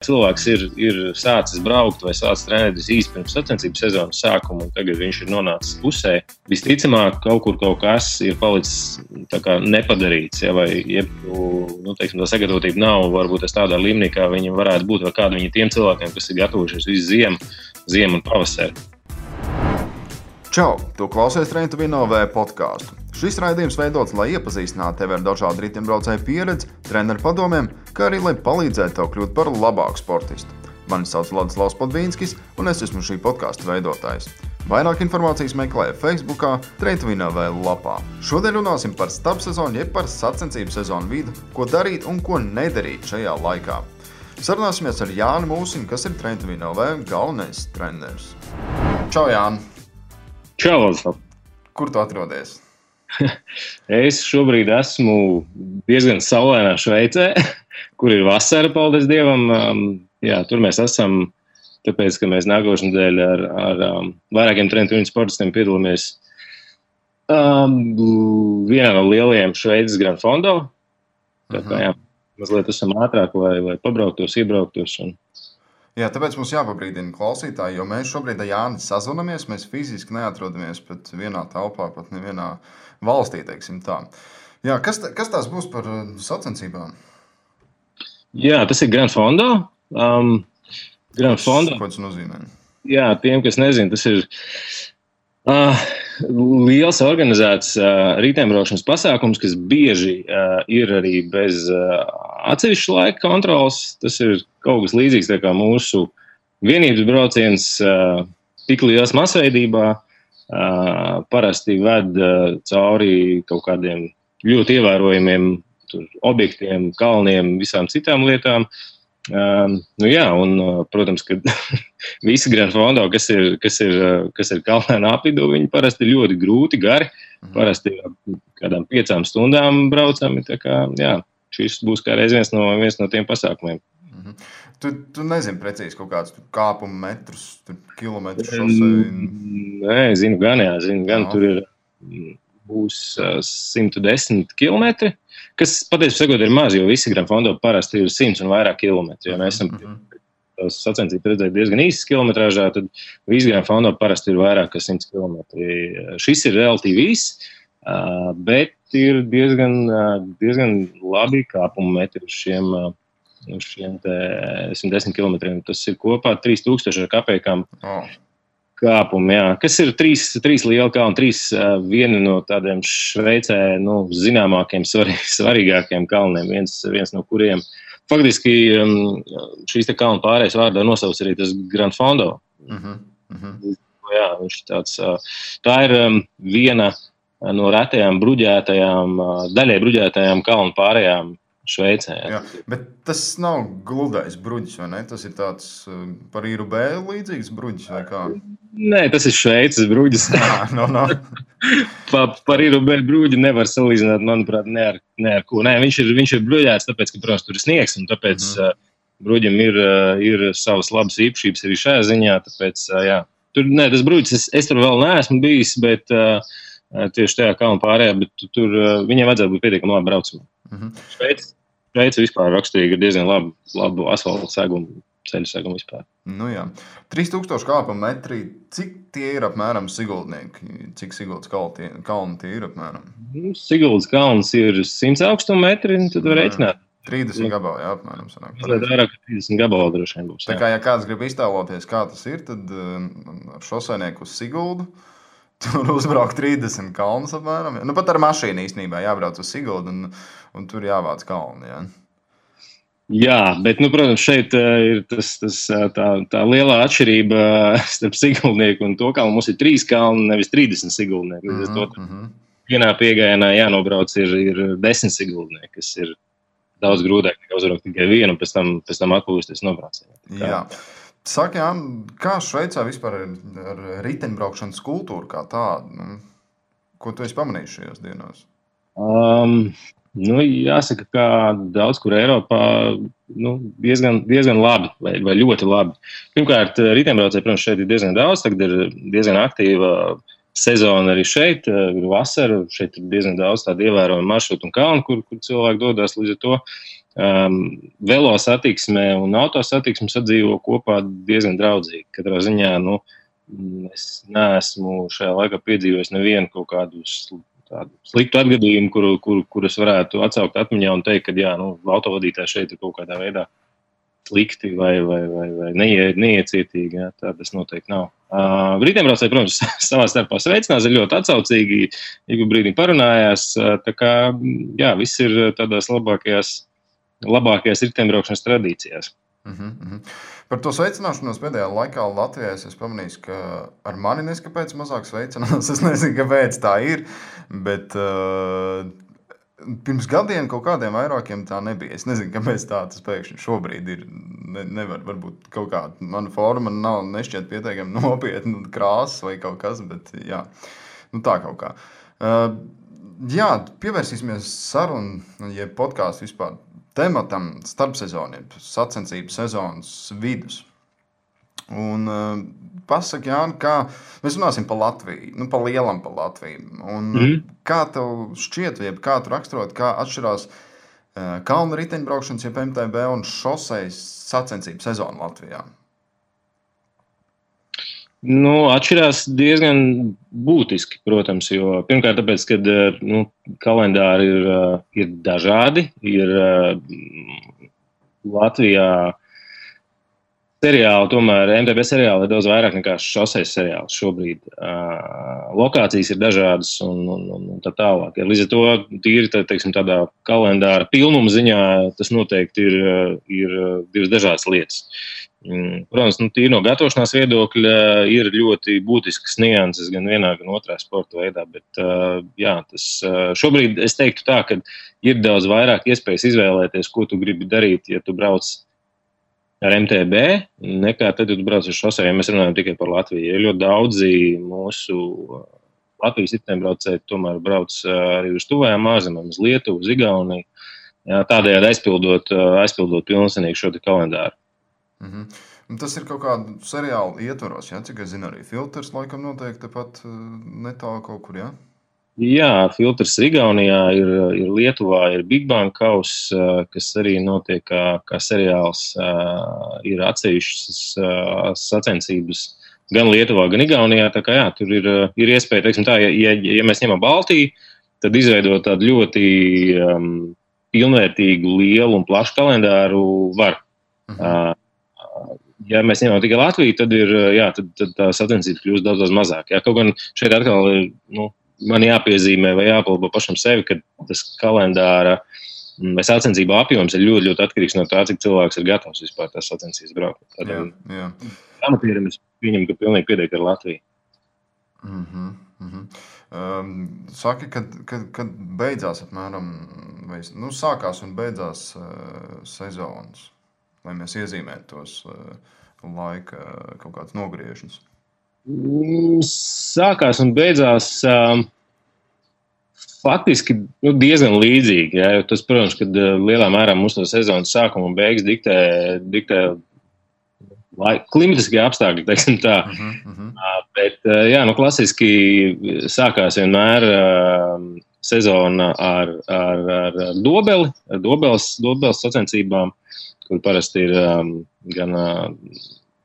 cilvēks ir sācis braukt vai sācis trenēties īsti pirms sacensību sezonas sākuma, un tagad viņš ir nonācis pusē. Visticamāk, kaut kas ir palicis tā kā nepadarīts, ja, vai tā sagatavotība nav varbūt tādā līmenī, kā viņi varētu būt, vai kādu viņi tiem cilvēkiem, kas ir gatavojušies visu ziemu un pavasari. Čau! Tu klausies Train to Win OV podcastu. Šis raidījums veidots, lai iepazīstinātu tevi ar dažādu riteņbraucēju pieredzi, treneru padomiem, kā arī, lai palīdzētu tev kļūt par labāku sportistu. Mani sauc Ladislavs Podvīnskis, un es esmu šī podkasta veidotājs. Vairāk informācijas meklē Facebookā, Train to Win OV lapā. Šodien runāsim par starpsezonu, jeb par sacensību sezonu vidu, ko darīt un ko nedarīt šajā laikā. Sarunāsimies ar Jāni Mūsiņu, kas ir Train to Win OV galvenais treneris. Čau, Jāni! Čau, Ladislavs! Kur tu atrodies? Es šobrīd esmu diezgan saulainā Šveicē, kur ir vasara, paldies Dievam. Tur mēs esam, tāpēc, ka mēs nākošajā nedēļā ar vairākiem Train to Win sportistiem piedalāmies vienā no lielajiem Šveices Grand Fondo. Tā kā, mazliet esam ātrāk, lai pabrauktos, iebrauktos. Jā, tāpēc mums jāpabrīdina klausītāji, jo mēs šobrīd ar Jāni sazvanamies, mēs fiziski neatrodamies pat vienā telpā, pat nevienā valstī, teiksim tā. Jā, kas tās būs par sacensībām? Jā, tas ir Grand Fondo. Grand Fondo. Ko tas nozīmē? Jā, tiem, kas nezina, tas ir liels organizēts riteņbraukšanas pasākums, kas bieži ir arī bez atsevišķa laika kontrols. Tas ir kaut kas līdzīgs tā kā mūsu vienības brauciens tik liels masveidībā. Parasti ved cauri kaut kādiem ļoti ievērojumiem objektiem, kalniem, visām citām lietām. Protams, ka visi Grand Fondo, kas ir kalnēnā apvidū, viņi parasti ir ļoti grūti, gari. Parasti kādām 5 stundām braucami. Tā kā, šis būs kā reiz viens no tiem pasākumiem. Tu nezini precīzi kaut kādus kāpumu metrus, kilometrus šosei? Nē, zinu gan. Tur būs 110 kilometri, kas patiesībā sakot ir maz, jo visi Grand Fondo parasti ir 100 un vairāk kilometri. Ja mēs esam tās sacensības redzējuši diezgan īsas kilometrāžā, tad visi Grand Fondo parasti ir vairāk kā 100 kilometri. Šis ir relatīvi īss, bet ir diezgan labi kāpumu metri uz šiem 110 kilometriem. Tas ir kopā 3000 ar kapekām kāpumi, kas ir 3 lieli kalni, 3 vieni no tādiem Šveicē zināmākiem, svarīgākiem kalniem, viens no kuriem. Faktiski šīs te kalnu pārējais vārdā nosauc arī tas Grand Fondo. Jā, viņš tāds, tā ir viena no retajām daļai bruģētajām kalnu pārējām Šveicē. Jā, bet tas nav gludais bruģis, vai ne? Tas ir tāds par īru B līdzīgs bruģis, vai kā? Nē, tas ir Šveices bruģis. Par īru B bruģi nevar salīdzināt, manuprāt, ne ar ko. Nē, viņš ir bruģēts, tāpēc, ka, protams, tur ir sniegs, un tāpēc bruģim ir savas labas īpašības arī šajā ziņā. Tāpēc, tas bruģis, es tur vēl neesmu bijis, bet tieši tajā kalnu pārējā, bet tur viņiem vajadzētu būt pietiekami labi braucamā. Šveice vispār raksturīgi ir diezgan labu asfaltu segumu, ceļu segumu vispār. 3000 kāpumu metri, cik tie ir apmēram Siguldnieki? Cik Siguldas kalni tie ir apmēram? Siguldas kalns ir 100 augstuma metri, tad var reiķināt. 30 gabali, apmēram. Vairāk 30 gabali droši vien būs. Tā kā, ja kāds grib iztēloties, kā tas ir, tad ar šoseinieku uz Siguldu tur uzbraukt 30 kalnus apmēram. Pat ar mašīnu īstenībā jābrauc uz Siguldu un tur jāvāc kalni. Jā, bet, protams, šeit ir tā lielā atšķirība starp Siguldnieku un to kalnu. Mums ir 3 kalni, nevis 30 Siguldnieki. Vienā piegājienā jānobrauc ir 10 Siguldnieki, kas ir daudz grūtāk nekā uzbraukt tikai vienu, un pēc tam atpūsties nobraucienā. Jā. Saki, Jāni, kā Šveicā vispār ar riteņbraukšanas kultūru kā tādu? Ko tu esi pamanījis šajās dienās? Jāsaka, ka daudz kur Eiropā diezgan labi vai ļoti labi. Pirmkārt, riteņbraucēji, protams, šeit ir diezgan daudz, tagad ir diezgan aktīva sezona arī šeit, ir vasara, šeit ir diezgan daudz tādu ievērojumu maršrutu un kalnu, kur cilvēki dodas līdz ar to. Velo satiksme un auto satiksme sadzīvo kopā diezgan draudzīgi. Katrā ziņā, es neesmu šajā laikā piedzīvojis nevienu kaut kādu tādu sliktu atgadījumu, kur es varētu atsaukt atmiņā un teikt, ka autovadītāji šeit ir kaut kādā veidā slikti vai neiecietīgi. Jā, tā tas noteikti nav. Riteņbraucēji, protams, savā starpā sveicinās, ir ļoti atsaucīgi, ik brīdī parunājās. Tā kā, jā, viss ir tādās labākajās riteņbraukšanas tradīcijās. Par to sveicināšanos pēdējā laikā Latvijā es pamanīju, ka ar mani neskapēc mazāk sveicinās. Es nezinu, kāpēc tā ir, bet pirms gadiem kaut kādiem vairākiem tā nebija. Es nezinu, kāpēc tā tas pēkšņi šobrīd ir. Nevar, varbūt kaut kāda mana forma nav nešķiet pietiekami nopietna krāsas vai kaut kas, bet jā, tā kaut kā. Jā, pievērsīsimies sarunu, podkāstu vispār tematam starpsezoniem, sacensību sezonas vidus. Un pasaki, Jāni, kā mēs runāsim par Latviju, pa lielam par Latviju. Un kā tev šķiet, jeb kā tu raksturot, kā atšķirās kalnu riteņbraukšanas, jeb MTB un šosejas sacensību sezonu Latvijā? Atšķirās diezgan būtiski, protams, jo pirmkārt tāpēc, ka kalendāri ir dažādi. Ir Latvijā seriāli, tomēr MTB seriāli ir daudz vairāk nekā šosejas seriāli šobrīd. Lokācijas ir dažādas un tā tālāk. Līdz ar to tīri tādā kalendāra pilnuma ziņā tas noteikti ir divas dažādas lietas. Protams, tīri no gatavošanās viedokļa ir ļoti būtiskas nianses gan vienā, gan otrā sporta veidā, bet jā, tas šobrīd es teiktu tā, ka ir daudz vairāk iespējas izvēlēties, ko tu gribi darīt, ja tu brauc ar MTB, nekā tad, ja tu brauc ar šosejām, ja mēs runājam tikai par Latviju. Ir ļoti daudzi mūsu Latvijas riteņbraucēji tomēr brauc arī uz tuvajām ārzemēm, uz Lietuvu, uz Igauniju, tādējādi aizpildot pilnsenīgi šo te kalendāru. Tas ir kaut kādu seriālu ietvaros, ja? Cik es zinu, arī Filters laikam noteikti tepat netālu kaut kur, ja? Jā, Filters Igaunijā, ir Lietuvā, ir Big Bang Kaus, kas arī notiek kā seriāls, ir atsevišķas sacensības gan Lietuvā, gan Igaunijā, tā kā jā, tur ir iespēja, teiksim tā, ja mēs ņemam Baltiju, tad izveidot tādu ļoti pilnvērtīgu, lielu un plašu kalendāru var. Ja mēs ņemam tikai Latviju, tad tad tā sacensības kļūst daudz mazāk. Jā, kaut gan šeit atkal ir, man jāpiezīmē vai jāpalbo pašam sevi, ka tas kalendāra vai sacensību apjoms ir ļoti, ļoti atkarīgs no tā, cik cilvēks ir gatavs vispār tās sacensības braukt. Jā. Amatierim es pieņemu, ka pilnīgi pietiek ar Latviju. Saki, kad beidzās apmēram, vai, sākās un beidzās sezonas, lai mēs iezīmētu tos laika kaut kāds nogriežņus? Sākās un beidzās faktiski diezgan līdzīgi. Jā, tas, protams, kad lielā mērā mūsu sezonas sākuma un beigas diktē klimatiskie apstākļi, teiksim tā. Bet, jā, klasiski sākās vienmēr sezona ar dobeli, ar dobeles sacensībām, kur parasti ir gan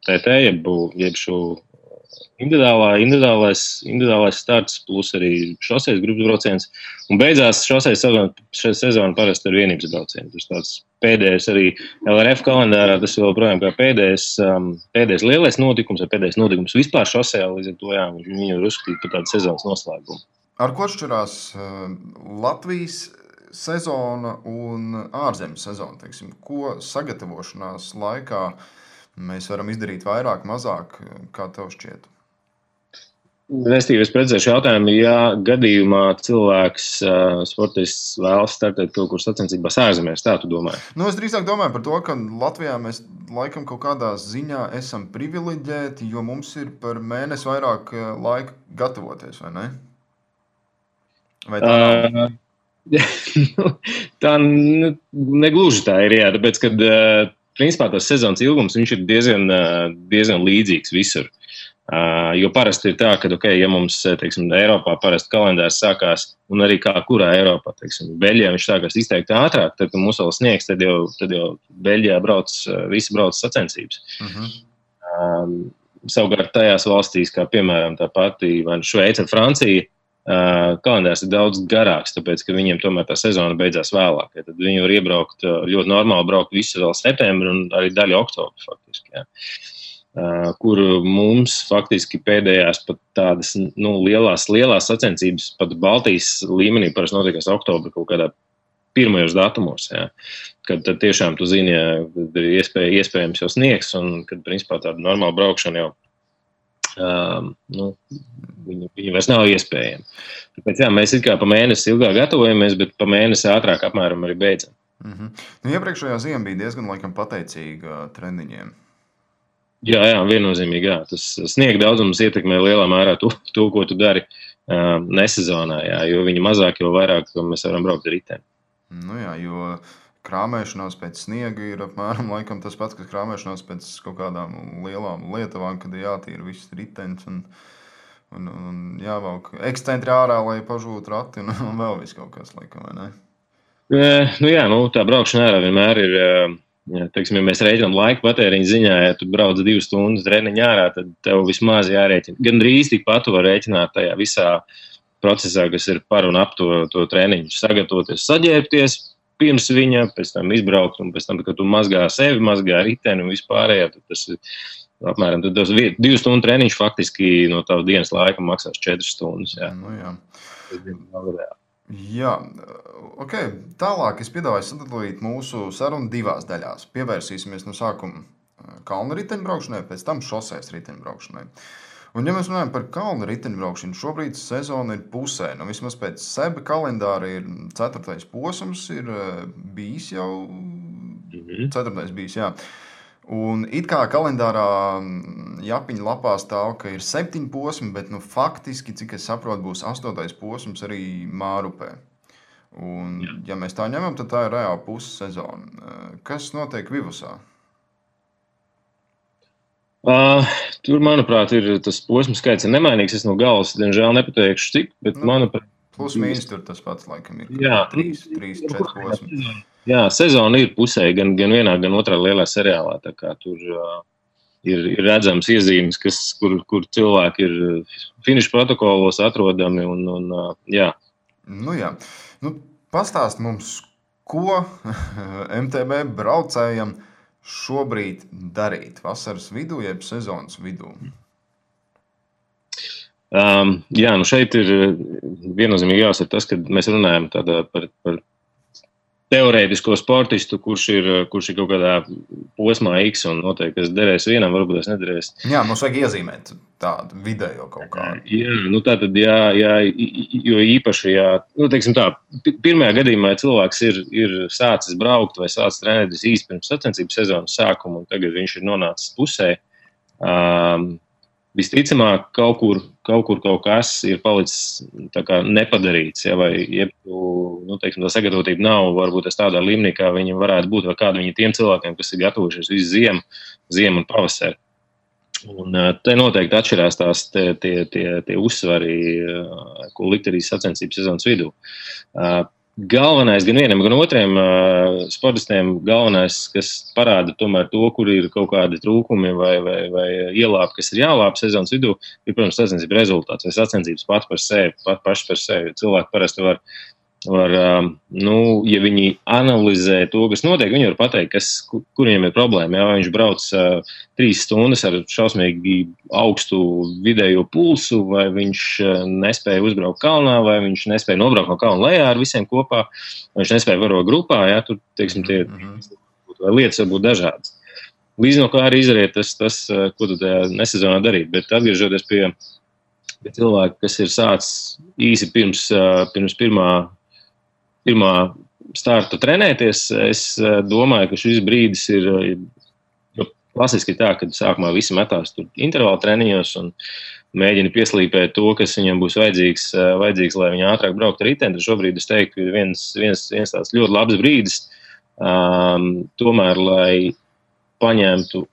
TT, jeb šo individuālais starts, plus arī šosejas grupas brauciens. Un beidzās šosejas sezona parasti ar vienības braucienu. Tas tāds pēdējais arī LRF kalendārā, tas joprojām kā pēdējais lielais notikums, vai pēdējais notikums vispār šosejā, līdz ar to, jā, viņu ir uzskatīt par tādu sezonas noslēgumu. Ar ko atšķirās Latvijas sezona un ārzemju sezona, teiksim, ko sagatavošanās laikā mēs varam izdarīt vairāk, mazāk, kā tev šķiet? Restīvi, es precizēšu jautājumu, ja gadījumā cilvēks, sportists vēlas startēt kaut kur sacensībās ārzemēs, tā tu domāji? Es drīzāk domāju par to, ka Latvijā mēs laikam kaut kādā ziņā esam privileģēti, jo mums ir par mēnesi vairāk laika gatavoties, vai ne? Vai tā nav? Tā negluži tā ir, jā, tāpēc, kad principā tas sezonas ilgums viņš ir diezgan līdzīgs visur. Jo parasti ir tā, ka, ja mums, teiksim, Eiropā parasti kalendārs sākās, un arī kā kurā Eiropā, teiksim, Beļģijā viņš sākās izteikti ātrāk, tad, kad mums vēl sniegs, tad jau Beļģijā visi brauc sacensības. Savukārt tajās valstīs, kā piemēram tā pati Šveice un Francija, kalendārs ir daudz garāks, tāpēc, ka viņiem tomēr tā sezona beidzās vēlāk. Ja, tad viņi var iebraukt, ļoti normāli braukt visu vēl septembri un arī daļu oktobru faktiski. Ja. Kur mums faktiski pēdējās pat tādas lielās sacensības pat Baltijas līmenī parasti notiekās oktobra kaut kādā pirmajos datumos, ja, kad tad tiešām tu zini, ir iespējams jau sniegs un kad principā tāda normāla braukšana jau viņi vairs nav iespējami. Tāpēc jā, mēs it kā pa mēnesi ilgāk gatavojamies, bet pa mēnesi ātrāk apmēram arī beidzam. Iepriekšējā ziema bija diezgan laikam pateicīga treniņiem. Jā, viennozīmīgi, jā. Tas sniega daudzums ietekmē lielā mērā to, ko tu dari nesezonā, jā, jo viņi mazāk, jo vairāk mēs varam braukt ar riteni. Jā, jo krāmēšanās pēc sniega ir apmēram laikam tas pats, kas krāmēšanās pēc kaut kādām lielām lietavām, kad ir jātīra viss ritenis un jāvelk ekscentri ārā, lai pažūtu rati un vēl viss kaut kas laikam, vai ne? Tā braukšana ārā vienmēr ir... Ja, teiksim, ja mēs rēķinām laika patēriņu ziņā, ja tu brauc 2 stundas treniņā ārā, tad tev vismaz jārēķina. Gan drīz tikpat tu var rēķināt tajā visā procesā, kas ir par un ap to treniņu. Sagatavoties, saģērbties pirms viņa, pēc tam izbraukt, un pēc tam, kad tu mazgā sevi, mazgā riteni un vispārējā, tad tas ir apmēram 2 stundu treniņš faktiski no tava dienas laika maksās 4 stundas. Jā. Jā. Jā, ok. Tālāk es piedāvāju sadalīt mūsu sarunu 2 daļās. Pievērsīsimies no sākuma kalnu riteņbraukšanai, pēc tam šoseis riteņbraukšanai. Un ja mēs runājam par kalnu riteņbraukšanu, šobrīd sezona ir pusē. Vismaz pēc seba kalendāra ir 4. posms, ir bijis jau 4. bijis, jā. Un it kā kalendārā Japiņa lapā stāv, ka ir 7 posmi, bet faktiski, cik es saprotu, būs 8. posms arī Mārupē. Un, ja mēs tā ņemam, tad tā ir reāli pussezona. Kas notiek Vivusā? Tur, manuprāt, ir tas posmu skaits ir nemainīgs. Es no galvas, diemžēl, nepateikšu cik, bet manuprāt... Plus mīnus tur tas pats, laikam, ir 3-4 posmi. Jā, sezona ir pusē, gan vienā, gan otrā lielā seriālā. Tā kā tur ir redzams iezīmes, kur cilvēki ir finiša protokolos atrodami. Jā. Jā. Pastāst mums, ko MTB braucējam šobrīd darīt vasaras vidū, jeb sezonas vidū? Šeit ir viennozīmīgi jāsaka tas, ka mēs runājam par teorētisko sportistu, kurš ir kaut kādā posmā X un noteikti, kas derēs vienam, varbūt tas nederēs. Jā, mums vajag iezīmēt tādu vidējo kaut kādu. Tātad, jo īpaši, teiksim tā, pirmajā gadījumā, ja cilvēks ir sācis braukt vai sācis trenēties īsti pirms sacensību sezonas sākuma, un tagad viņš ir nonācis pusē, visticamāk, kaut kur kaut kas ir palicis tā kā nepadarīts, vai teiksim, tā sagatavotība nav varbūt tādā līmenī, kā viņi varētu būt, vai kāda viņi tiem cilvēkiem, kas ir gatavojušies visu ziemu un pavasari. Un te noteikti atšķirās tās tie uzsvari, ko likt arī sacensības sezonas vidū. Galvenais gan vienam, gan otriem sportistiem, kas parāda tomēr to, kur ir kaut kādi trūkumi vai ielāpi, kas ir jālāp sezonas vidū, ir, protams, sacensību rezultāts vai sacensības paši par sevi. Cilvēki parasti var, ja viņi analizē to, kas notiek, viņi var pateikt, kur viņam ir problēma. Ja viņš brauc 3 stundas ar šausmīgi augstu vidējo pulsu, vai viņš nespēja uzbraukt kalnā, vai viņš nespēja nobraukt no kalna lejā ar visiem kopā, vai viņš nespēja varot grupā, tur, teiksim, lietas var būt dažādas. Līdz no kā arī izariet tas, ko tu tajā nesezonā darīt, bet atgriežoties pie cilvēka, kas ir sācis īsi pirms pirmā starta trenēties, es domāju, ka šis brīdis ir klasiski tā, kad sākumā visi metās tur intervāla treniņos un mēģina pieslīpēt to, kas viņam būs vajadzīgs, lai viņi ātrāk braukt ar riteni. Šobrīd es teiktu, ka viens tāds ļoti labs brīdis, tomēr, lai paņemtu,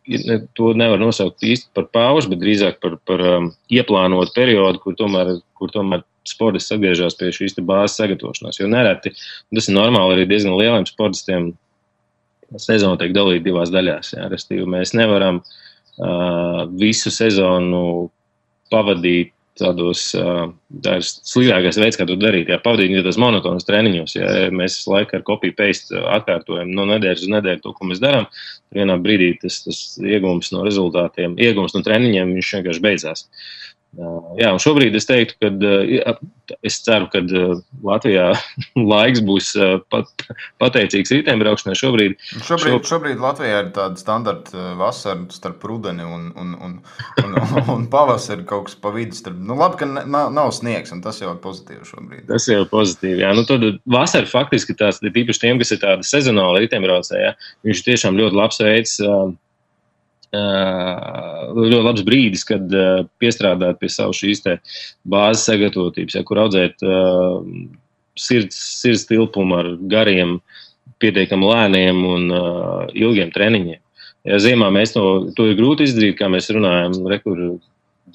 to nevar nosaukt īsti par pauzi, bet drīzāk par ieplānotu periodu, kur tomēr sportists atgriežas pie šīs bāzes sagatavošanās. Jo nereti, tas ir normāli arī diezgan lieliem sportistiem, sezona tiek dalīta divās daļās. Jā. Restīvi, mēs nevaram visu sezonu pavadīt tādos, tā ir sliktākais veids, kā to darīt. Jā, pavadīt tas monotonas treniņos, ja mēs laiku ar copy-paste atkārtojam no nedēļas uz nedēļu to, ko mēs darām, vienā brīdī tas iegūms no rezultātiem, iegūms no treniņiem, viņš vienkārši beidzās. Jā, un šobrīd es teiktu, ka es ceru, ka Latvijā laiks būs pateicīgs riteņbraukšanai šobrīd. Šobrīd Latvijā ir tāda standarta vasara starp rudeni un pavasari kaut kas pa vidu. Labi, ka nav sniegs, un tas jau ir pozitīvi šobrīd. Tas jau ir pozitīvi, jā. Tad vasara faktiski tās, tīpaši tiem, kas ir tāda sezonāla riteņbraucēja, viņš tiešām ļoti labs veids, ļoti labs brīdis, kad piestrādāt pie savu šīs te bāzes sagatavotības, kur audzēt sirds tilpumu ar gariem, pietiekami lēniem un ilgiem treniņiem. Ja ziemā mēs to ir grūti izdarīt, kā mēs runājam, rekur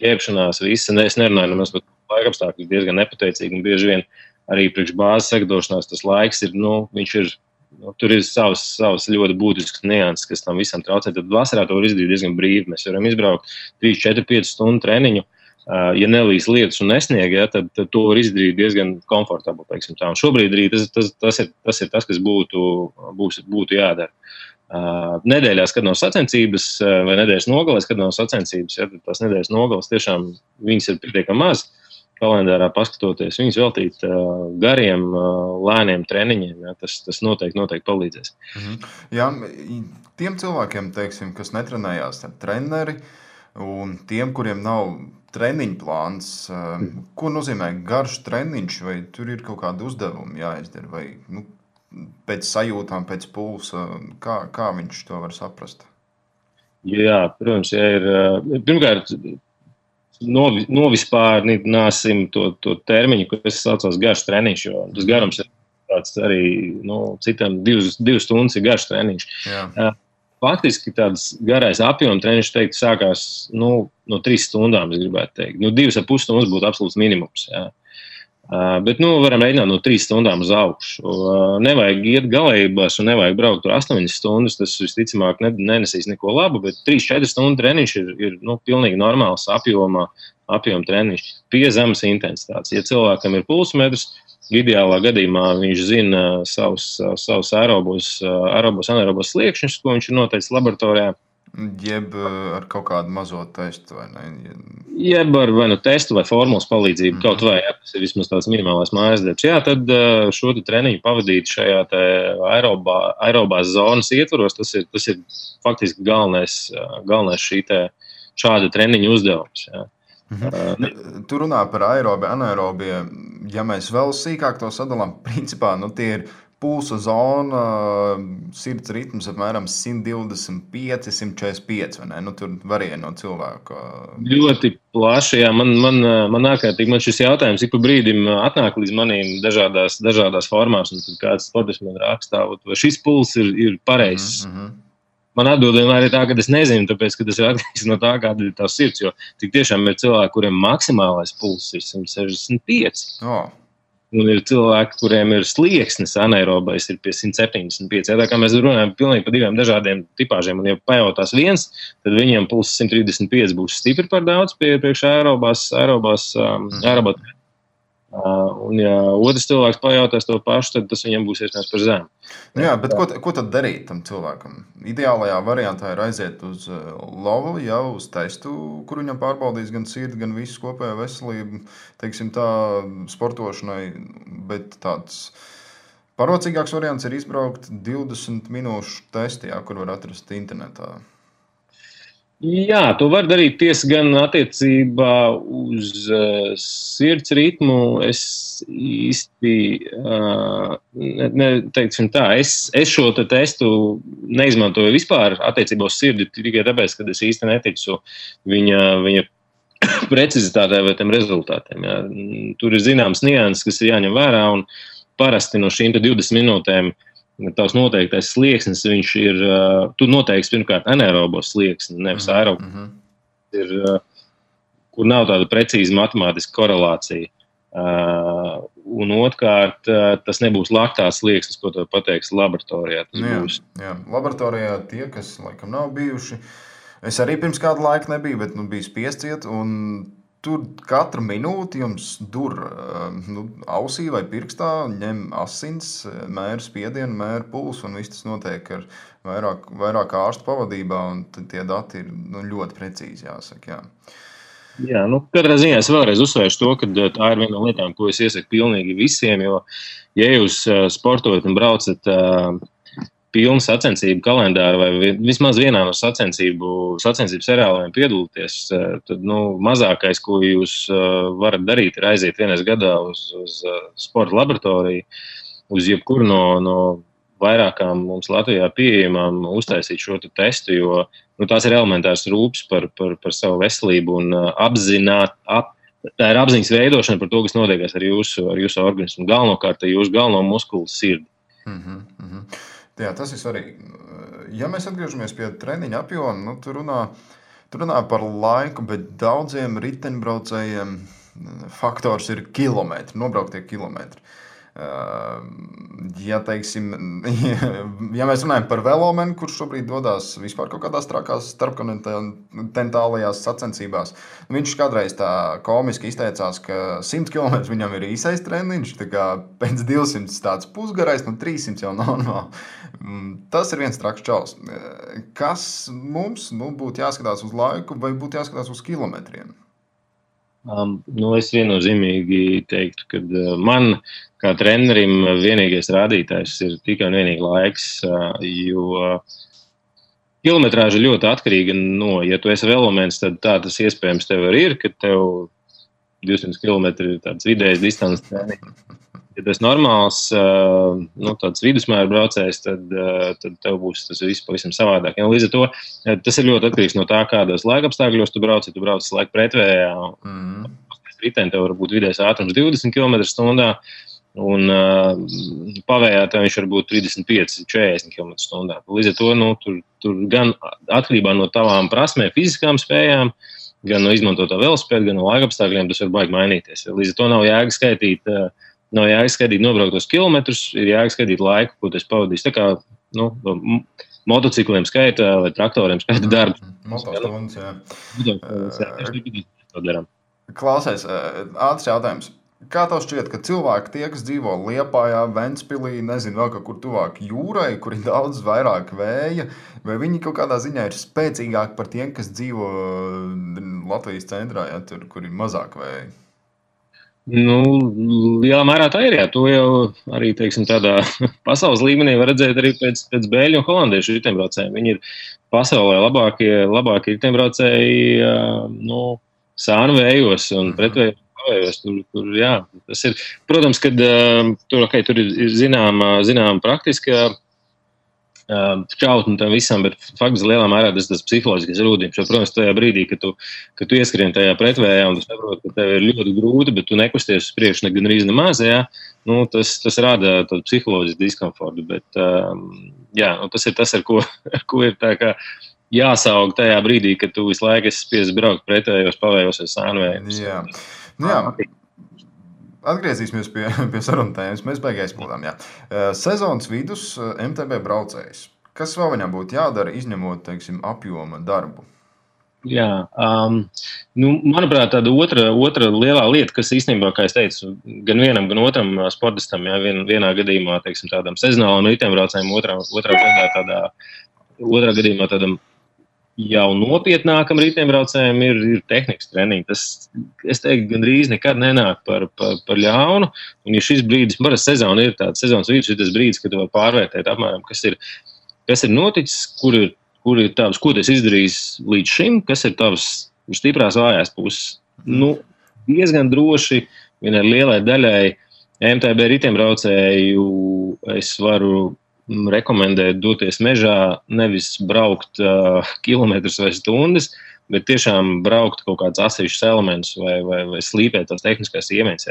ģērbšanās, viss, es nerunāju nemaz par laikapstākļus, diezgan nepateicīgi, un bieži vien arī priekš bāzes sagatavošanās tas laiks ir, viņš ir, tur ir savas ļoti būtiskas nianses, kas tam visam traucē. Tad vasarā to var izdarīt diezgan brīvi. Mēs varam izbraukt 3, 4, 5 stundu treniņu. Ja nelīs lietus un nesnieg, ja, tad to var izdarīt diezgan komfortabli. Tā. Un šobrīd arī tas ir tas, kas būtu jādara. Nedēļās, kad nav sacensības, vai nedēļas nogalēs, kad nav sacensības, ja, tad tās nedēļas nogalēs tiešām viņas ir pietiekami maz. Kalendārā paskatoties, viņus veltīt gariem, lēniem treniņiem, ja, tas noteikti palīdzēs. Jā, tiem cilvēkiem, teiksim, kas netrenējās ar treneri, un tiem, kuriem nav treniņu plāns, ko nozīmē garš treniņš, vai tur ir kaut kādi uzdevumi jāizdara, vai pēc sajūtām, pēc pulsa, kā viņš to var saprast? Jā, protams, ja ir, pirmkārt, novispārnāsim to termiņu, kas saucās garš treniņš, jo tas garums ir tāds arī, citam 2 stundas ir garš treniņš. Jā. Faktiski tāds garais apjoma treniņš, teiktu, sākās no 3 stundām, es gribētu teikt. 2,5 stundas būtu absolūts minimums, jā. Bet, varam rēķināt no 3 stundām uz augšu. Nevajag iet galējībās un nevajag braukt tur 8 stundas, tas visticamāk nenesīs neko labu, bet 3-4 stundu treniņš ir pilnīgi normāls apjoma treniņš, pie zemes intensitātes. Ja cilvēkam ir pulsmetrs, ideālā gadījumā viņš zina savus aerobos anaerobos sliekšņus, ko viņš ir noteicis laboratorijā. Jeb ar kaut kādu mazo testu, vai ne? Jeb ar vai testu vai formulas palīdzību, kaut vai, ja tas ir vismaz tāds minimālais mājas darbs. Jā, tad šo treniņu pavadīt šajā te aerobās zonas ietvaros, tas ir faktiski galvenais šāda treniņa uzdevums. Jā. Tu runā par aerobie, anaerobie. Ja mēs vēl sīkāk to sadalām, principā, tie ir pulsa zona, sirds ritms apmēram 125, 145, vai ne? Tur varēja no cilvēka. Ļoti plaši, jā. Man ārkārtīgi, man šis jautājums ik pa brīdim atnāk līdz manīm dažādās formās, un tad kāds sportists man rakstā, vai šis puls ir pareizs. Man atbild vienmēr ir tā, ka es nezinu, tāpēc, ka tas ir atkarīgs no tā, kāda ir tā sirds, jo tik tiešām ir cilvēki, kuriem maksimālais puls ir 165. Un ir cilvēki, kuriem ir slieksnis anaerobais, ir pie 175. Tā kā mēs runājam pilnīgi par 2 dažādiem tipāžiem, un ja pajautās viens, tad viņam puls 135 būs stipri par daudz priekš aerobās. Un ja otrs cilvēks pajautās to pašu, tad tas viņam būs iespējams par zemu. Jā, bet ko tad darīt tam cilvēkam? Ideālajā variantā ir aiziet uz lovu, jau uz testu, kur viņam pārbaudīs gan sirdi, gan visu kopējo veselību, teiksim tā, sportošanai, bet tāds parocīgāks variants ir izbraukt 20 minūšu testi, kur var atrast internetā. Jā, to var darīt tiesa gan attiecībā uz sirds ritmu. Es īsti teiksim tā, es šo testu neizmantoju vispār attiecībā uz sirdi tikai tāpēc, ka es īsti neticu viņa precizitātē vai tiem rezultātiem. Jā. Tur ir zināms nianses, kas ir jāņem vērā, un parasti no šīm 20 minūtēm tavs noteiktais slieksnis, viņš ir, tu noteikti pirmkārt anaerobos slieksni, nevis aerobos. Ir, kur nav tāda precīza matemātiska korelācija. Un otrkārt, tas nebūs laktās slieksnis, ko tev pateiks laboratorijā. Jā, laboratorijā tie, kas laikam nav bijuši, es arī pirms kādu laiku nebiju, bet biju spiests iet, un tur katru minūti jums dur ausī vai pirkstā, ņem asins, mēra spiedienu, mēra pulsu, un viss tas notiek ar vairāk ārstu pavadībā, un tie dati ir ļoti precīzi, jāsaka, jā. Jā, katrā ziņā es vēlreiz uzsvēršu to, ka tā ir viena no lietām, ko es iesaku pilnīgi visiem, jo, ja jūs sportojat un braucat pilnu sacensību kalendāru vai vismaz vienā no sacensību seriāliem piedalīties, tad mazākais, ko jūs varat darīt, ir aiziet vienreiz gadā uz sporta laboratoriju, uz jebkuru no vairākām mums Latvijā pieejamām uztaisīt šo testu, jo tās ir elementārs rūpes par savu veselību un tā ir apziņas veidošana par to, kas notiekās ar jūsu organismu. Galvenokārt jūsu galveno muskulu sirdi. Jā, tas ir svarīgi. Ja mēs atgriežamies pie treniņa apjoma, tu runā par laiku, bet daudziem riteņbraucējiem faktors ir kilometri, nobrauktie kilometri. Ja mēs runājam par velomenu, kurš šobrīd dodas vispār kaut kādās trakās starpkontinentālajās sacensībās, viņš kādreiz tā komiski izteicās, ka 100 km viņam ir īsais treniņš, tā kā pēc 200 tāds pusgarais, 300 jau normāli. Tas ir viens traks čaus. Kas mums būtu jāskatās uz laiku vai būtu jāskatās uz kilometriem? Es viennozīmīgi teiktu, ka man kā trenerim vienīgais rādītājs ir tikai un vienīgi laiks, jo kilometrāža ļoti atkarīga no, ja tu esi velomens, tad tā tas iespējams tev arī ir, ka tev 200 km ir tāds vidējs distances treniņš. Ja tu esi normāls, tāds vidusmēra braucējs, tad tev būs tas viss pavisam savādāk. Ja, līdz ar to tas ir ļoti atkarīgs no tā, kādos laikapstākļos tu brauc. Ja tu brauc laika pretvējā, riteni tev var būt vidējais ātrums 20 km/h, un pavējā tev viņš var būt 35-40 km/h. Līdz ar to tur gan atkarībā no tavām prasmēm, fiziskām spējām, gan no izmantotā velospēda, gan no laikapstākļiem, tas var baigi mainīties. Līdz ar to nav jēga skaitīt nobrauktos kilometrus, ir jēga skaitīt laiku, ko tas pavadīs. Tā kā motocikliem skaita vai traktoriem skaita darbu. Motostundas, jā. Klausies, ātrs jautājums. Kā tev šķiet, ka cilvēki tie, kas dzīvo Liepājā, Ventspilī, nezinu vēl kaut kur tuvāk jūrai, kur ir daudz vairāk vēja, vai viņi kaut kādā ziņā ir spēcīgāki par tiem, kas dzīvo Latvijas centrā, ja, tur, kur ir mazāk vēja? Lielā mērā tā ir, jā. To jau arī, tādā pasaules līmenī var redzēt arī pēc bēļu un holandiešu riteņbraucējiem. Viņi ir pasaulē labākie riteņbraucēji, sānu vējos un pretvējos pavējos. Tur, jā, tas ir, protams, kad tur ir zināma praktiska šķautni tam visam, bet faktiski lielā mērā tas psiholoģiskais rūdījums. Jo, protams, tajā brīdī, kad tu ieskrien tajā pretvējā un tu saproti, ka tev ir ļoti grūti, bet tu nekusties uz priekšu gan arī nemaz, tas rada tādu psiholoģisku diskomfortu. Bet, tas ir tas, ar ko ir tā kā jāsaug tajā brīdī, kad tu visu laiku esi spiests braukt pretvējos, pavējos vai sānvējos. Jā. Atgriezīsimies pie sarunu tēmas. Mēs beigās aizpildām. Sezonas vidus MTB braucējs. Kas vēl viņam būtu jādara, izņemot, apjoma darbu? Jā, manuprāt, tāda otra lielā lieta, kas īstenībā, kā es teicu, gan vienam, gan otram sportistam, vienā gadījumā, tādam sezonālam riteņbraucējam, otrā gadījumā tādam jau nopietnākam riteņbraucējiem ir tehnikas treniņi. Tas, es teiktu, gandrīz nekad nenāk par ļaunu. Un ja šis brīdis, parasti sezona ir tāds, sezonas vidus ir tas brīdis, kad tu vari pārvērtēt apmēram, kas ir noticis, kur ir tavs, ko tu esi izdarījis līdz šim, kas ir tavs stiprās vājās puses. Diezgan droši vienai lielai daļai MTB riteņbraucēju es varu rekomendēt doties mežā, nevis braukt kilometrus vai stundas, bet tiešām braukt kaut kāds atsevišķs elements vai slīpēt tās tehniskās iemaņas.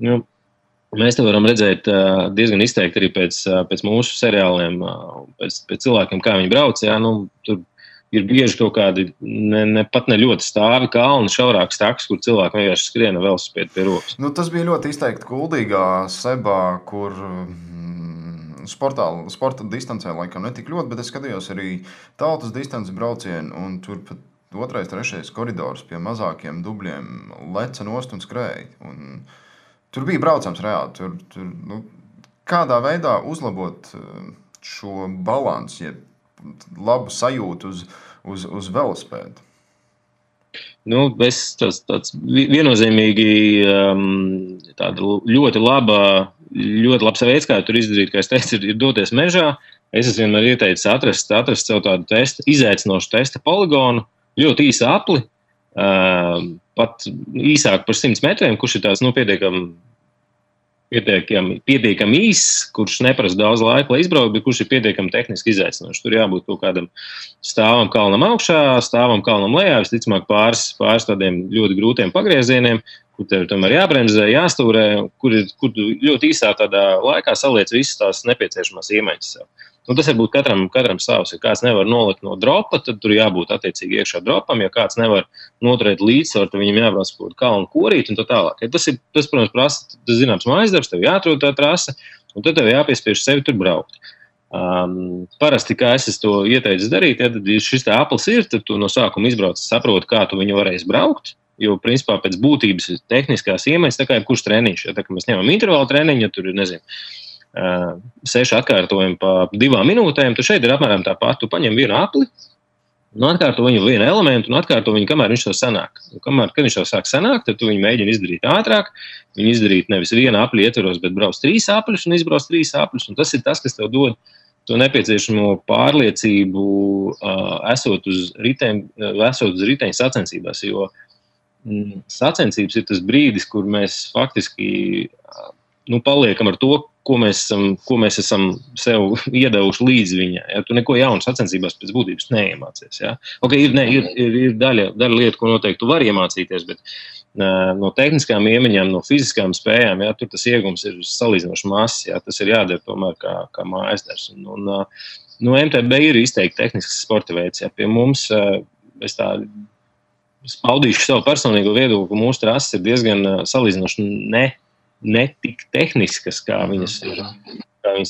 Jo Mēs te varam redzēt diezgan izteikti arī pēc mūsu seriāliem, pēc cilvēkiem, kā viņi brauc. Jā, tur ir bieži kaut kādi pat ne ļoti stāvi kalni, šaurāks taks, kur cilvēki vienkārši skriena velosipēdu pie rokas. Tas bija ļoti izteikti Kuldīgā, Sebā, kur sporta distancē laikam netik ļoti, bet es skatījos arī tautas distances braucienu, un tur pat 2., 3. koridors pie mazākiem dubļiem leca nost un skrēja. Tur bija braucams reāli. Kādā veidā uzlabot šo balansu, ja labu sajūtu uz velospēdu? Tāds viennozīmīgi tāda ļoti labs veids, kā tur izdarīt, kā es teicu, ir doties mežā. Es esmu vienmēr ieteicis atrast sev tādu izaicinošu testa poligonu, ļoti īsu apli, pat īsāk par 100 metriem, kurš ir tāds pietiekami īss, kurš neprasa daudz laika, lai izbrauktu, bet kurš ir pietiekami tehniski izaicinošs. Tur jābūt kaut kādam stāvam kalnam augšā, stāvam kalnam lejā, visticamāk pāris tādiem ļoti grūtiem pagriezieniem, kur tev tomēr jābremzē, jāstūrē, kur ļoti īsā tādā laikā saliec visas tās nepieciešamās iemaņas sev. Tas var būt katram savs. Ja kāds nevar nolikt no dropa, tad tur jābūt attiecīgi iekšā dropam. Ja kāds nevar noturēt līdzsvaru, tad viņam jābrauc kaut kalnu korīt un tā tālāk. Ja tas, protams, prasa zināms mājas darbs, tev jāatrod tā trase, un tad tev jāpiespiež sevi tur braukt. Parasti, kā es to ieteicu darīt, ja tad šis tā aplis ir, tad tu no sākuma izbrauc, saproti, kā tu viņu varēsi braukt. Jo, principā, pēc būtības ir tehniskās iemaņas, tā kā jebkurš treniņš. Ja tā kā mēs ņemam intervālu treniņu, ja tur ir, 6 atkārtojumi pa 2 minūtēm, tad šeit ir apmēram tāpat. Tu paņem vienu apli, atkārto viņu vienu elementu un atkārto viņu, kamēr viņš to sanāk. Kad viņš to sāk sanākt, tad tu viņu mēģini izdarīt ātrāk. Viņu izdarīt nevis vienu apli ietveros, bet brauc 3 apļus un izbrauc 3 apļus. Un tas ir tas, kas tev dod to nepieciešamo pārliecību, esot uz riteņa sacensībās. Jo sacensības ir tas brīdis, kur mēs faktiski paliekam ar to, ko mēs esam sev iedevuši līdz viņai. Ja? Tu neko jaunu sacensībās pēc būtības neiemācies. Ja? Okay, ir daļa lietu, ko noteikti tu vari iemācīties, bet no tehniskām iemaņām, no fiziskām spējām, ja, tur tas iegums ir salīdzinoši mazs. Ja? Tas ir jādara tomēr kā mājas darbs. MTB ir izteikti tehnisks sporta veids. Ja? Pie mums, es paudīšu savu personīgo viedokli, ka mūsu trases ir diezgan salīdzinoši ne tik tehniskas, kā viņas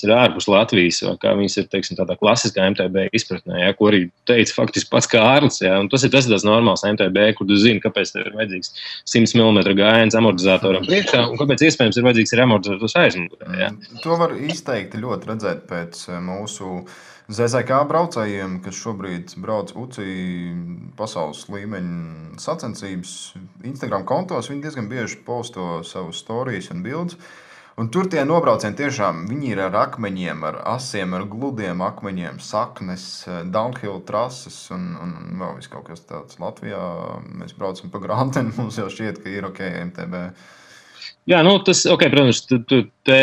ir ārpus Latvijas, vai kā viņas ir, teiksim, tādā klasiskā MTB izpratnē, ja, ko arī teica faktiski pats Kārlis. Ja, tas ir tāds normāls MTB, kur tu zini, kāpēc tev ir vajadzīgs 100 mm gājiens amortizatoram priekšā, un kāpēc iespējams ir vajadzīgs arī amortizators aizmugurē. Ja. To var izteikti ļoti redzēt pēc mūsu ZZK braucējiem, kas šobrīd brauc UCI pasaules līmeņa sacensības Instagram kontos. Viņi diezgan bieži posto savus storijas un bildes. Un tur tie nobraucieni tiešām, viņi ir ar akmeņiem, ar asiem, ar gludiem akmeņiem, saknes, downhill trases un vēl viss kaut kas tāds. Latvijā mēs braucam pa Granteni, mums jau šķiet, ka ir ok MTB. Jā, protams, te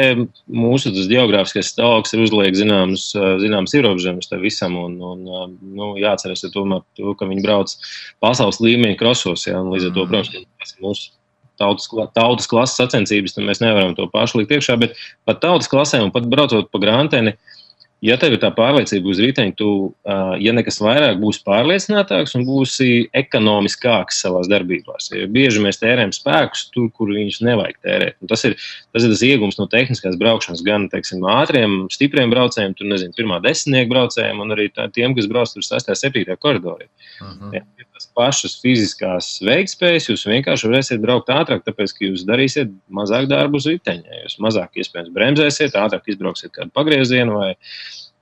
mūsu geogrāfiskais stāvoklis ir uzliek zināmas ierobežojumus tam visam, un jāatceras tomēr to, ka viņi brauc pasaules līmeņa krosos, ja, un līdz ar to, protams, mūsu tautas klases sacensības, tad mēs nevaram to pašu likt iekšā, bet pat tautas klasē un pat braucot pa Granteni, ja tev ir tā pārliecība uz riteņa, tu, ja nekas vairāk, būsi pārliecinātāks un būsi ekonomiskāks savās darbībās. Ja bieži mēs tērējam spēkus tur, kur viņus nevajag tērēt. Un tas ir tas iegums no tehniskās braukšanas, gan, teiksim, ātriem, stipriem braucējiem, tur, pirmā desmitnieku braucējiem un arī tiem, kas brauc tur 6. 7. koridorī. Ja, tas pašas fiziskās veiktspējas, jūs vienkārši varēsiet braukt ātrāk, tāpēc, ka jūs darīsiet mazāk darbu uz riteņa. Jūs mazāk iespējams bremzēsiet, ātrāk izbrauksiet kādu pagriezienu vai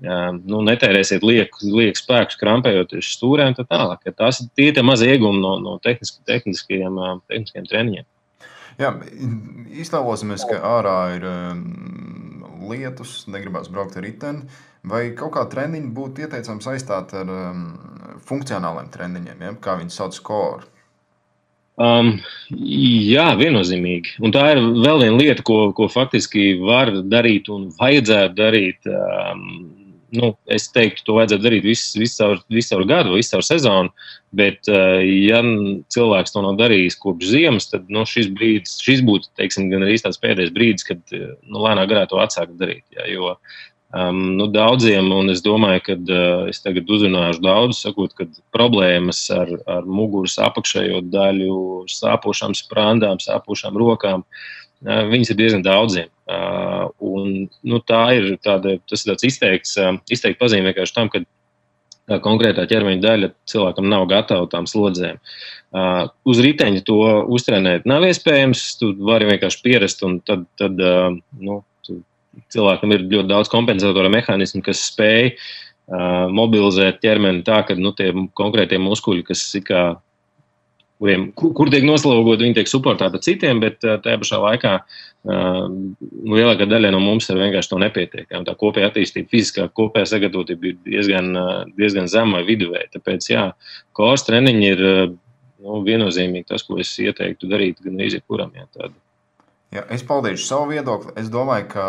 netērēsiet lieku spēkus, krampējoties stūrēm un tā tālāk. Ja tās ir tie mazi iegumi no tehniskajiem treniņiem. Jā, iztēlosimies, ka ārā ir lietus, negribās braukt ar riteni. Vai kaut kā treniņi būtu ieteicams aizstāt ar funkcionāliem treniņiem, ja? Kā viņi sauc core? Jā, viennozīmīgi. Un tā ir vēl viena lieta, ko faktiski var darīt un vajadzētu darīt es teiktu, to vajadzētu darīt visu caur gadu, visu caur sezonu, bet, ja cilvēks to nav darījis kopš ziemas, tad šis būtu, teiksim, gan arī tāds pēdējais brīdis, kad lēnā garā to atsākt darīt. Ja, jo daudziem, un es domāju, ka es tagad uzrunāšu daudz, sakot, ka problēmas ar muguras apakšējo daļu, sāpošām sprandām, sāpošām rokām, viņas ir diezgan daudziem. Tas ir tāds izteikti pazīme vienkārši tam, ka konkrētā ķermeņa daļa cilvēkam nav gatava tām slodzēm. Uz riteņa to uztrenēt nav iespējams, tu vari vienkārši pierast, un tad cilvēkam ir ļoti daudz kompensatora mehānismu, kas spēj mobilizēt ķermeni tā, ka tie konkrētie muskuļi, kas kur tiek noslogot, viņi tiek suportēti citiem, bet tajā pašā laikā lielākā daļa no mums ir vienkārši to nepietiek. Tā kopēja attīstība, fiziskā kopēja sagatavotība ir diezgan zema vai viduvēja. Tāpēc, core treniņi ir viennozīmīgi tas, ko es ieteiktu darīt gan arī jebkuram. Ja, es paldīšu savu viedokli. Es domāju, ka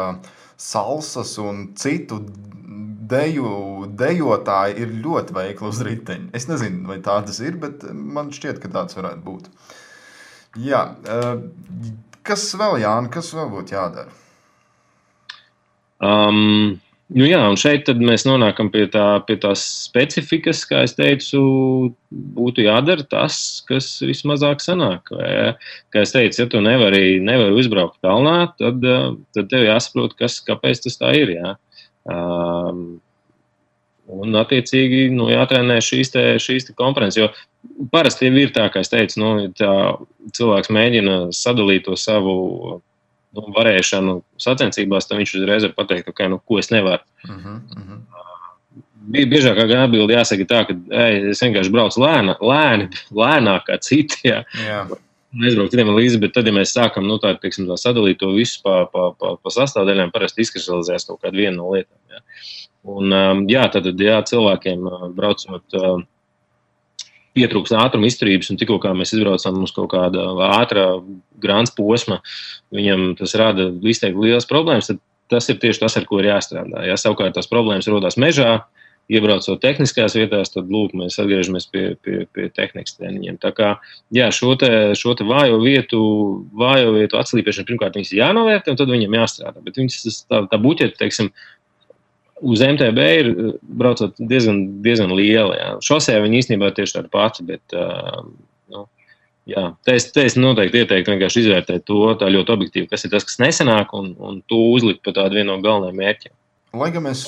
salsas un citu dejotāji ir ļoti veikli uz riteņa. Es nezinu, vai tā tas ir, bet man šķiet, ka tāds varētu būt. Jā, kas vēl, Jāni, kas vēl būtu jādara? Un šeit tad mēs nonākam pie tās specifikas, kā es teicu, būtu jādara tas, kas vismazāk sanāk. Kā es teicu, ja tu nevari uzbraukt kalnā, tad tev jāsaprot, kāpēc tas tā ir. Jā. Un attiecīgi jātrenē šīs te komponentes, jo parasti ir tā, kā es teicu, cilvēks mēģina sadalīt to savu varēšanu sacensībās, tad viņš uzreiz var pateikt, ko es nevaru. Biežākā atbilde jāsaka tā, ka es vienkārši braucu lēnāk kā citi, neizbraukt citiem līdzi, bet tad, ja mēs sākam tā sadalīt to visu pa sastāvdaļām, parasti izkristalizēs kaut kādu vienu no lietām. Jā. Un tad cilvēkiem braucot pietrūks ātruma izturības, un tikko kā mēs izbraucam uz kaut kāda ātrā grāns posma, viņam tas rada izteikti lielas problēmas, tad tas ir tieši tas, ar ko ir jāstrādā. Ja savukārt tās problēmas rodās mežā, iebraucot tehniskās vietās, tad mēs atgriežamies pie tehnikas treniņiem. Tā kā, šo te vājo vietu atslīpēšanu, pirmkārt, viņas ir jānovērtē, un tad viņam jāstrādā. Bet viņas tā buķeta, teiksim, uz MTB ir braucot diezgan liela. Jā. Šosē viņi īstenībā tieši tāda pati, bet es noteikti ieteiktu vienkārši izvērtēt to tā ļoti objektīvi, kas ir tas, kas nesanāk, un to uzlikt par tādu vienu no galvenajiem mērķiem. Lai gan mēs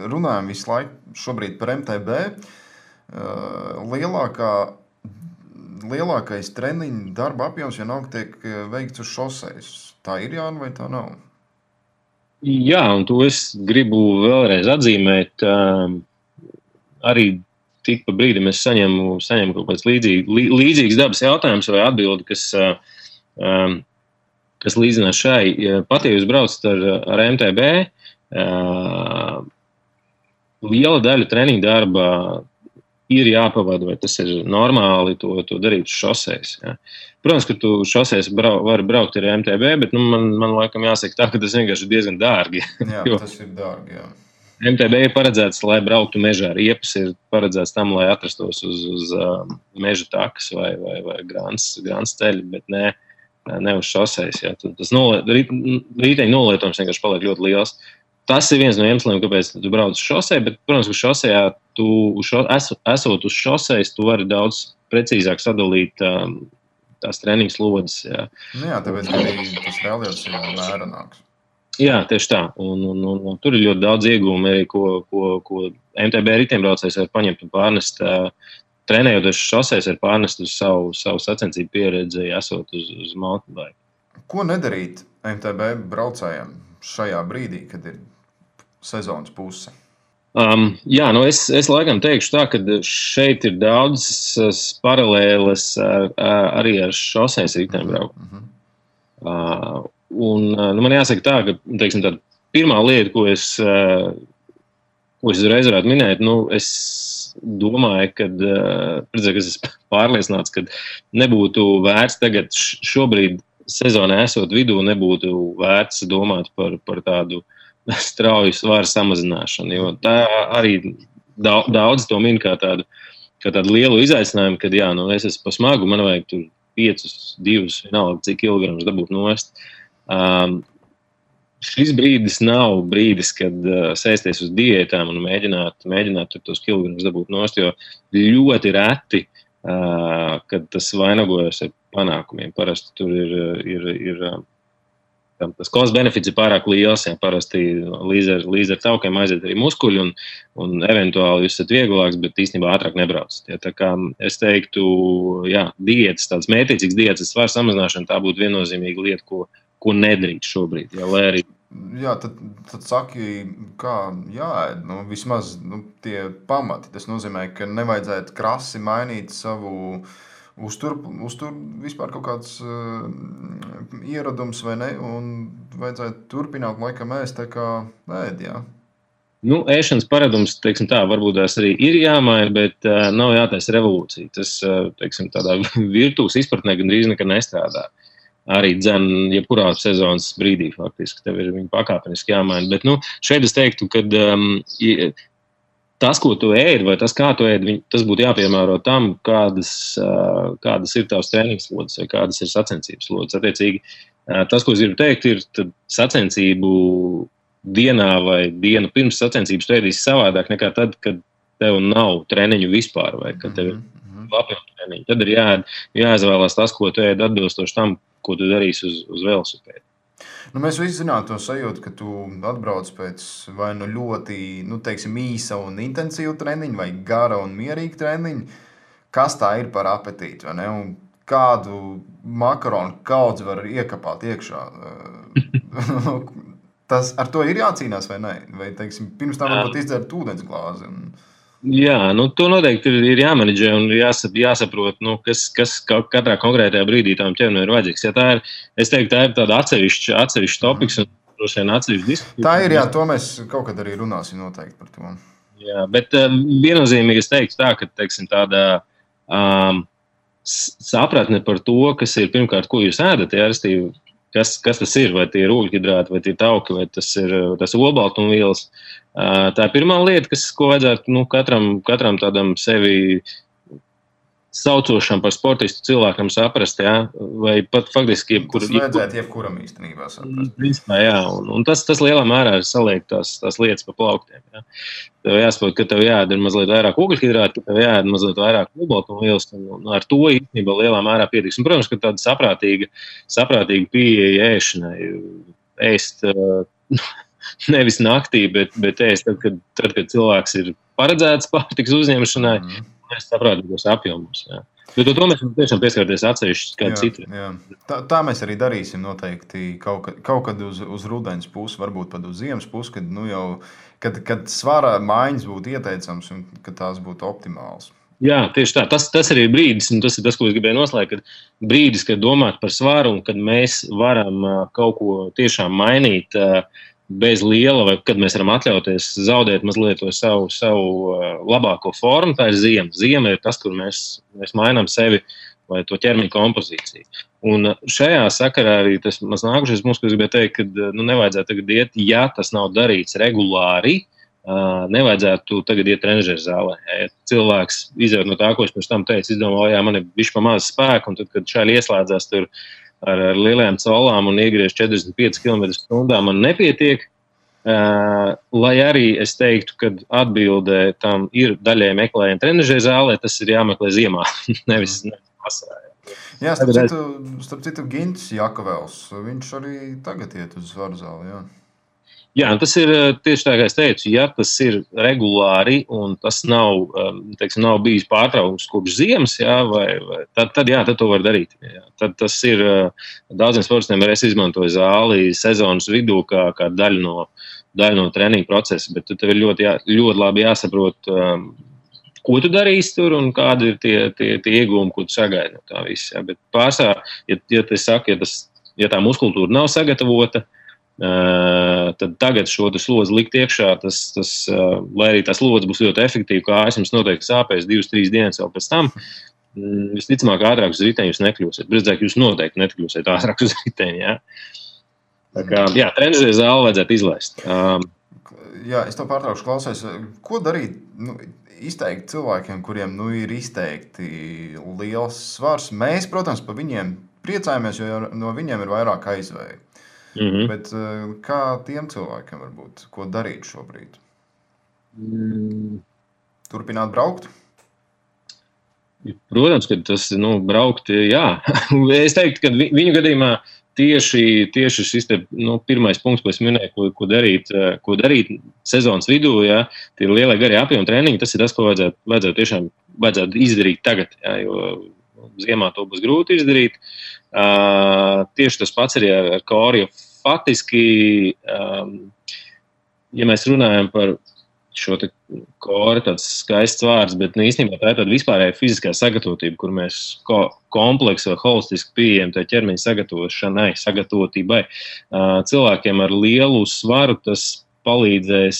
runājam visu laiku šobrīd par MTB, lielākais treniņu darba apjoms vienalga tiek veikts uz šosejas. Tā ir, Jāni, vai tā nav? Jā, un to es gribu vēlreiz atzīmēt. Arī tik pa brīdim es saņemu kaut kāds līdzīgs dabas jautājums vai atbildi, kas līdzinās šai. Pat, ja jūs braucat ar MTB, liela daļa treniņu darba ir jāpavada, vai tas ir normāli to darīt uz šosejas. Ja. Protams, ka tu šosejas vari braukt ar MTB, bet man laikam jāsaka tā, ka tas vienkārši ir diezgan dārgi. Jā, tas ir dārgi, jā. MTB ir paredzēts, lai brauktu mežā. Riepas ir paredzēts tam, lai atrastos uz meža takas vai grāns ceļi, bet ne uz šosejas. Ja. Tas rīteņu nolietojums vienkārši paliek ļoti liels. Tas ir viens no iemesliem, kāpēc tu brauc uz šoseju, bet, protams, ka šosejā esot uz šosejas, tu vari daudz precīzāk sadalīt tās treniņu slodzes. Jā, tāpēc arī tas reālies ir mērenāks. Jā, tieši tā. Un tur ir ļoti daudz iegūmi arī, ko MTB riteņbraucējs var paņemt un pārnest. Trenējoties šosejas, var pārnest uz savu sacensību pieredzi, esot uz mountain bike. Ko nedarīt MTB braucējiem šajā brīdī, kad ir sezonas puse? Es laikam teikšu tā, ka šeit ir daudzas paralēles arī ar šosejas riteņbrauku. Man jāsaka tā, ka teiksim, tā pirmā lieta, ko es uzreiz varētu minēt, es domāju, ka es pārliecināts, ka nebūtu vērts tagad šobrīd sezonā esot vidū, nebūtu vērts domāt par tādu strauju svara samazināšanu, jo tā arī daudz to min kā tādu lielu izaicinājumu, kad es esmu pa smagu, man vajag tur 5, 2, vienalga, cik kilogramus dabūt nost. Šis brīdis nav brīdis, kad sēsties uz diētām un mēģināt tos kilogramus dabūt nost, jo ļoti reti, kad tas vainagojas ar panākumiem. Parasti tur ir tas cost benefits ir pārāk liels, parasti līdz ar taukiem aiziet arī muskuļi un eventuāli jūs esat vieglāks, bet īstenībā ātrāk nebraucat. Tā kā es teiktu, diētas, tāds mērķīgs diētas svara samazināšana, tā būtu viennozīmīga lieta, ko nedrīkst šobrīd. Lai arī tad saki, kā jāēd, vismaz tie pamati. Tas nozīmē, ka nevajadzētu krasi mainīt savu uztur vispār kaut kāds ieradums vai ne, un vajadzētu turpināt laikam ēst tā kā ēd, jā. Ēšanas paradums, teiksim tā, varbūt tās arī ir jāmaina, bet nav jātaisa revolūcija. Tas, teiksim, tādā virtuves izpratnē gandrīz nekad nestrādā. Arī dzen, jebkurā sezonas brīdī faktiski tev ir viņa pakāpeniski jāmaina. Bet, šeit es teiktu, ka tas, ko tu ēd, vai tas, kā tu ēd, tas būtu jāpiemēro tam, kādas ir tavs treniņas slodzes vai kādas ir sacensības slodzes. Attiecīgi, tas, ko es gribu teikt, ir tad sacensību dienā vai dienu pirms sacensības tu ēdīsi savādāk nekā tad, kad tev nav treniņu vispār vai kad tev ir lapjautu treniņu. Tad ir jāizvēlās tas, ko tu ēd atbilstoši tam, ko tu darīsi uz velosipēdu. Mēs visi zinām to sajūtu, ka tu atbrauc pēc vai ļoti, teiksim, īsa un intensīva treniņa vai gara un mierīga treniņa. Kas tā ir par apetīti, vai ne? Un kādu makaronu kaudzi var iekapāt iekšā? Tas ar to ir jācīnās vai ne? Vai, teiksim, pirms tam varbūt izdzert ūdens glāzi? Jā, to noteikti ir jāmenedžē un jāsaprot, kas katrā konkrētajā brīdī tām ķermenim ir vajadzīgs. Ja es teiktu, tā ir tāda atsevišķa topiks un droši vien atsevišķa diskusija. Tā ir, jā, to mēs kaut kad arī runāsim noteikti par to. Jā, bet viennozīmīgi es teiktu tā, ka, teiksim, tāda sapratne par to, kas ir pirmkārt, ko jūs ēdat, restīvi, kas tas ir, vai tie ir ūļhidrāti, vai tie tauki, vai tas ir olbaltumvielas. Tā ir pirmā lieta, ko vajadzētu katram tādam sevi saucošam par sportistu cilvēkam saprast, vai pat faktiski tas vajadzētu jebkuram īstenībā saprast. Principā, jā, un tas lielā mērā ir saliekt tās lietas pa plauktiem. Jā. Tev jāsaprot, ka tev jāēd mazdien vairāk ūgļhidrātu, ka tev jāēd mazliet vairāk olbaltumvielas, un ar to īstenībā lielā mērā pietiks. Un, protams, ka tāda saprātīga pieeja ēšanai, ēst nevis naktī, bet ēst tad, kad cilvēks ir paredzēts pārtikas uzņemšanai, mēs saprātīgos apjomus. Jā. Bet to mēs tiešām pieskarties atsevišķi kādu citu. Jā. Tā mēs arī darīsim noteikti kaut kad uz rudens pusi, varbūt pat uz ziemas pusi, kad svara maiņas būtu ieteicams un kad tās būtu optimāls. Jā, tieši tā. Tas arī ir brīdis, un tas ir tas, ko es gribēju noslēgt, kad brīdis, kad domāt par svaru un kad mēs varam kaut ko tiešām mainīt bez liela, vai kad mēs varam atļauties zaudēt mazliet to savu labāko formu, tā ir ziema. Ziema ir tas, kur mēs mainām sevi vai to ķermeņa kompozīciju. Un šajā sakarā arī tas maz nākušais mums, ko es gribēju teikt, ka nevajadzētu tagad iet, ja tas nav darīts regulāri, nevajadzētu tagad iet trenižera zālē. Ja cilvēks izjūt no tā, ko es pirms tam teicu, izdomā, jā, man ir bišķi pa maz spēku, un tad, kad šādi ieslēdzās tur ar lielajām colām un iegriež 45 km/h, man nepietiek, lai arī es teiktu, ka atbildē tam ir daļai meklējumi trenižera zālē, tas ir jāmeklē ziemā, nevis vasarā. Jā, starp citu Gints Jakavels, viņš arī tagad iet uz svaru zāli, jā. Jā, tas ir tieši tā, kā es teicu, ja tas ir regulāri un tas nav bijis pārtraukums kopš ziemas, jā, tad to var darīt. Jā. Tad tas ir daudziem sportistiem, es izmantoju zāli sezonas vidū kā daļu no treniņa procesa, bet tev ir ļoti labi jāsaprot, ko tu darīsi tur un kādi ir tie iegūmi, ko tu sagaidi no tā viss. Jā. Bet pārsvarā, ja tā muskultūra nav sagatavota, tad tagad šo slodzi likt iekšā, lai arī tā slodze būs ļoti efektīva, kā jums noteikti sāpēs 2-3 dienas vēl pēc tam, visticamāk ātrāk uz riteņa jūs nekļūsiet. Drīzāk jūs noteikti nekļūsiet ātrāk uz riteņa. Ja? Tā kā, jā, trenižera zāli vajadzētu izlaist. Jā, es to pārtraukšu, klausies. Ko darīt izteikti cilvēkiem, kuriem ir izteikti liels svars? Mēs, protams, par viņiem priecājamies, jo no viņiem ir vairāk aizvēju. Bet kā tiem cilvēkiem varbūt, ko darīt šobrīd? Turpināt braukt? Protams, ka tas, braukt, jā. Es teiktu, ka viņu gadījumā tieši šis te, pirmais punkts, ko es minēju, ko darīt sezonas vidū, ja, tie ir lielie garie apjomi treniņi, tas ir tas, ko vajadzētu izdarīt tagad, ja, jo ziemā to būs grūti izdarīt. Tieši tas pats arī ar koru, jo faktiski, ja mēs runājam par šo te koru, tāds skaists vārds, bet īstenībā tā ir tāda vispārēja fiziskā sagatavotība, kur mēs kompleksu vai holistiski pieejam tā ķermeņa sagatavotībai. Cilvēkiem ar lielu svaru tas palīdzēs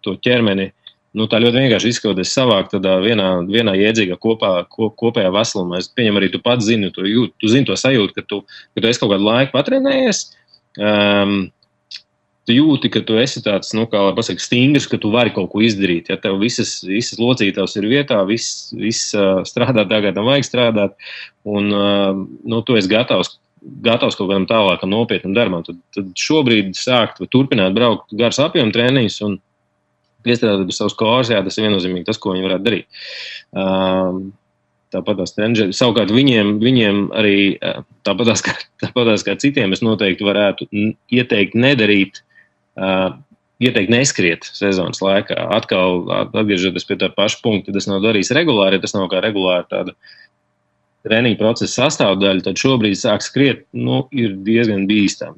to ķermeni, tā ļoti vienkārši izskauties savākt tādā vienā jēdzīgā kopējā veselumā. Es pieņem arī tu pats zini, tu zini to sajūtu, ka tu esi kaut kādu laiku patrenējies, tu jūti, ka tu esi tāds, kā lai pasaka, stingrs, ka tu vari kaut ko izdarīt. Ja tev visas locītavas ir vietā, viss strādā tā, kā tam vajag strādāt, un tu esi gatavs kaut kādam tālākam nopietnam darbam. Tad šobrīd sākt vai turpināt braukt gars apjomu treniņus un piestrādāt pie savus kors, jā, tas ir viennozīmīgi tas, ko viņi varētu darīt. Tāpat tās trenižeri. Savukārt viņiem arī tāpatās kā citiem es noteikti varētu ieteikt nedarīt, ieteikt neskriet sezonas laikā. Atkal atgriežoties pie tā paša punkta, tas nav darījis regulāri, ja tas nav kā regulāri tāda treniņa procesa sastāvdaļa, tad šobrīd sāk skriet, ir diezgan bīstami.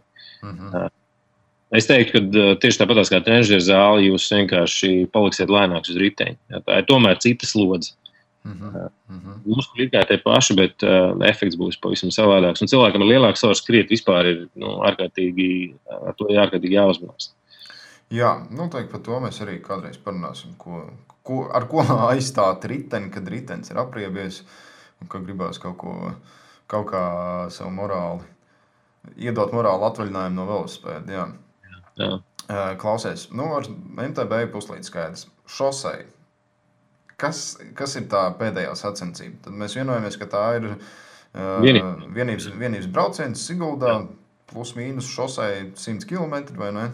Es teiktu, ka tieši tāpatās kā trenižera zāli, jūs vienkārši paliksiet lēnāks uz riteņa. Ja, tā ir tomēr cita slodze. Mums ir kā tie paši, bet efekts būs pavisam savādāks. Un cilvēkam ar lielāku svaru skriet vispār ir ārkārtīgi jāuzmanās. Jā, noteikti par to mēs arī kādreiz parunāsim, ar ko aizstāt riteni, kad ritenis ir apriebies un ka gribās kaut kā savu iedot morāli atvaļinājumu no velospēda. Jā. Klausies, ar MTB puslīdz skaidrs. Šosei. Kas ir tā pēdējā sacensība? Tad mēs vienojamies, ka tā ir vienības brauciens Siguldā, plus mīnus šosei 100 km, vai ne?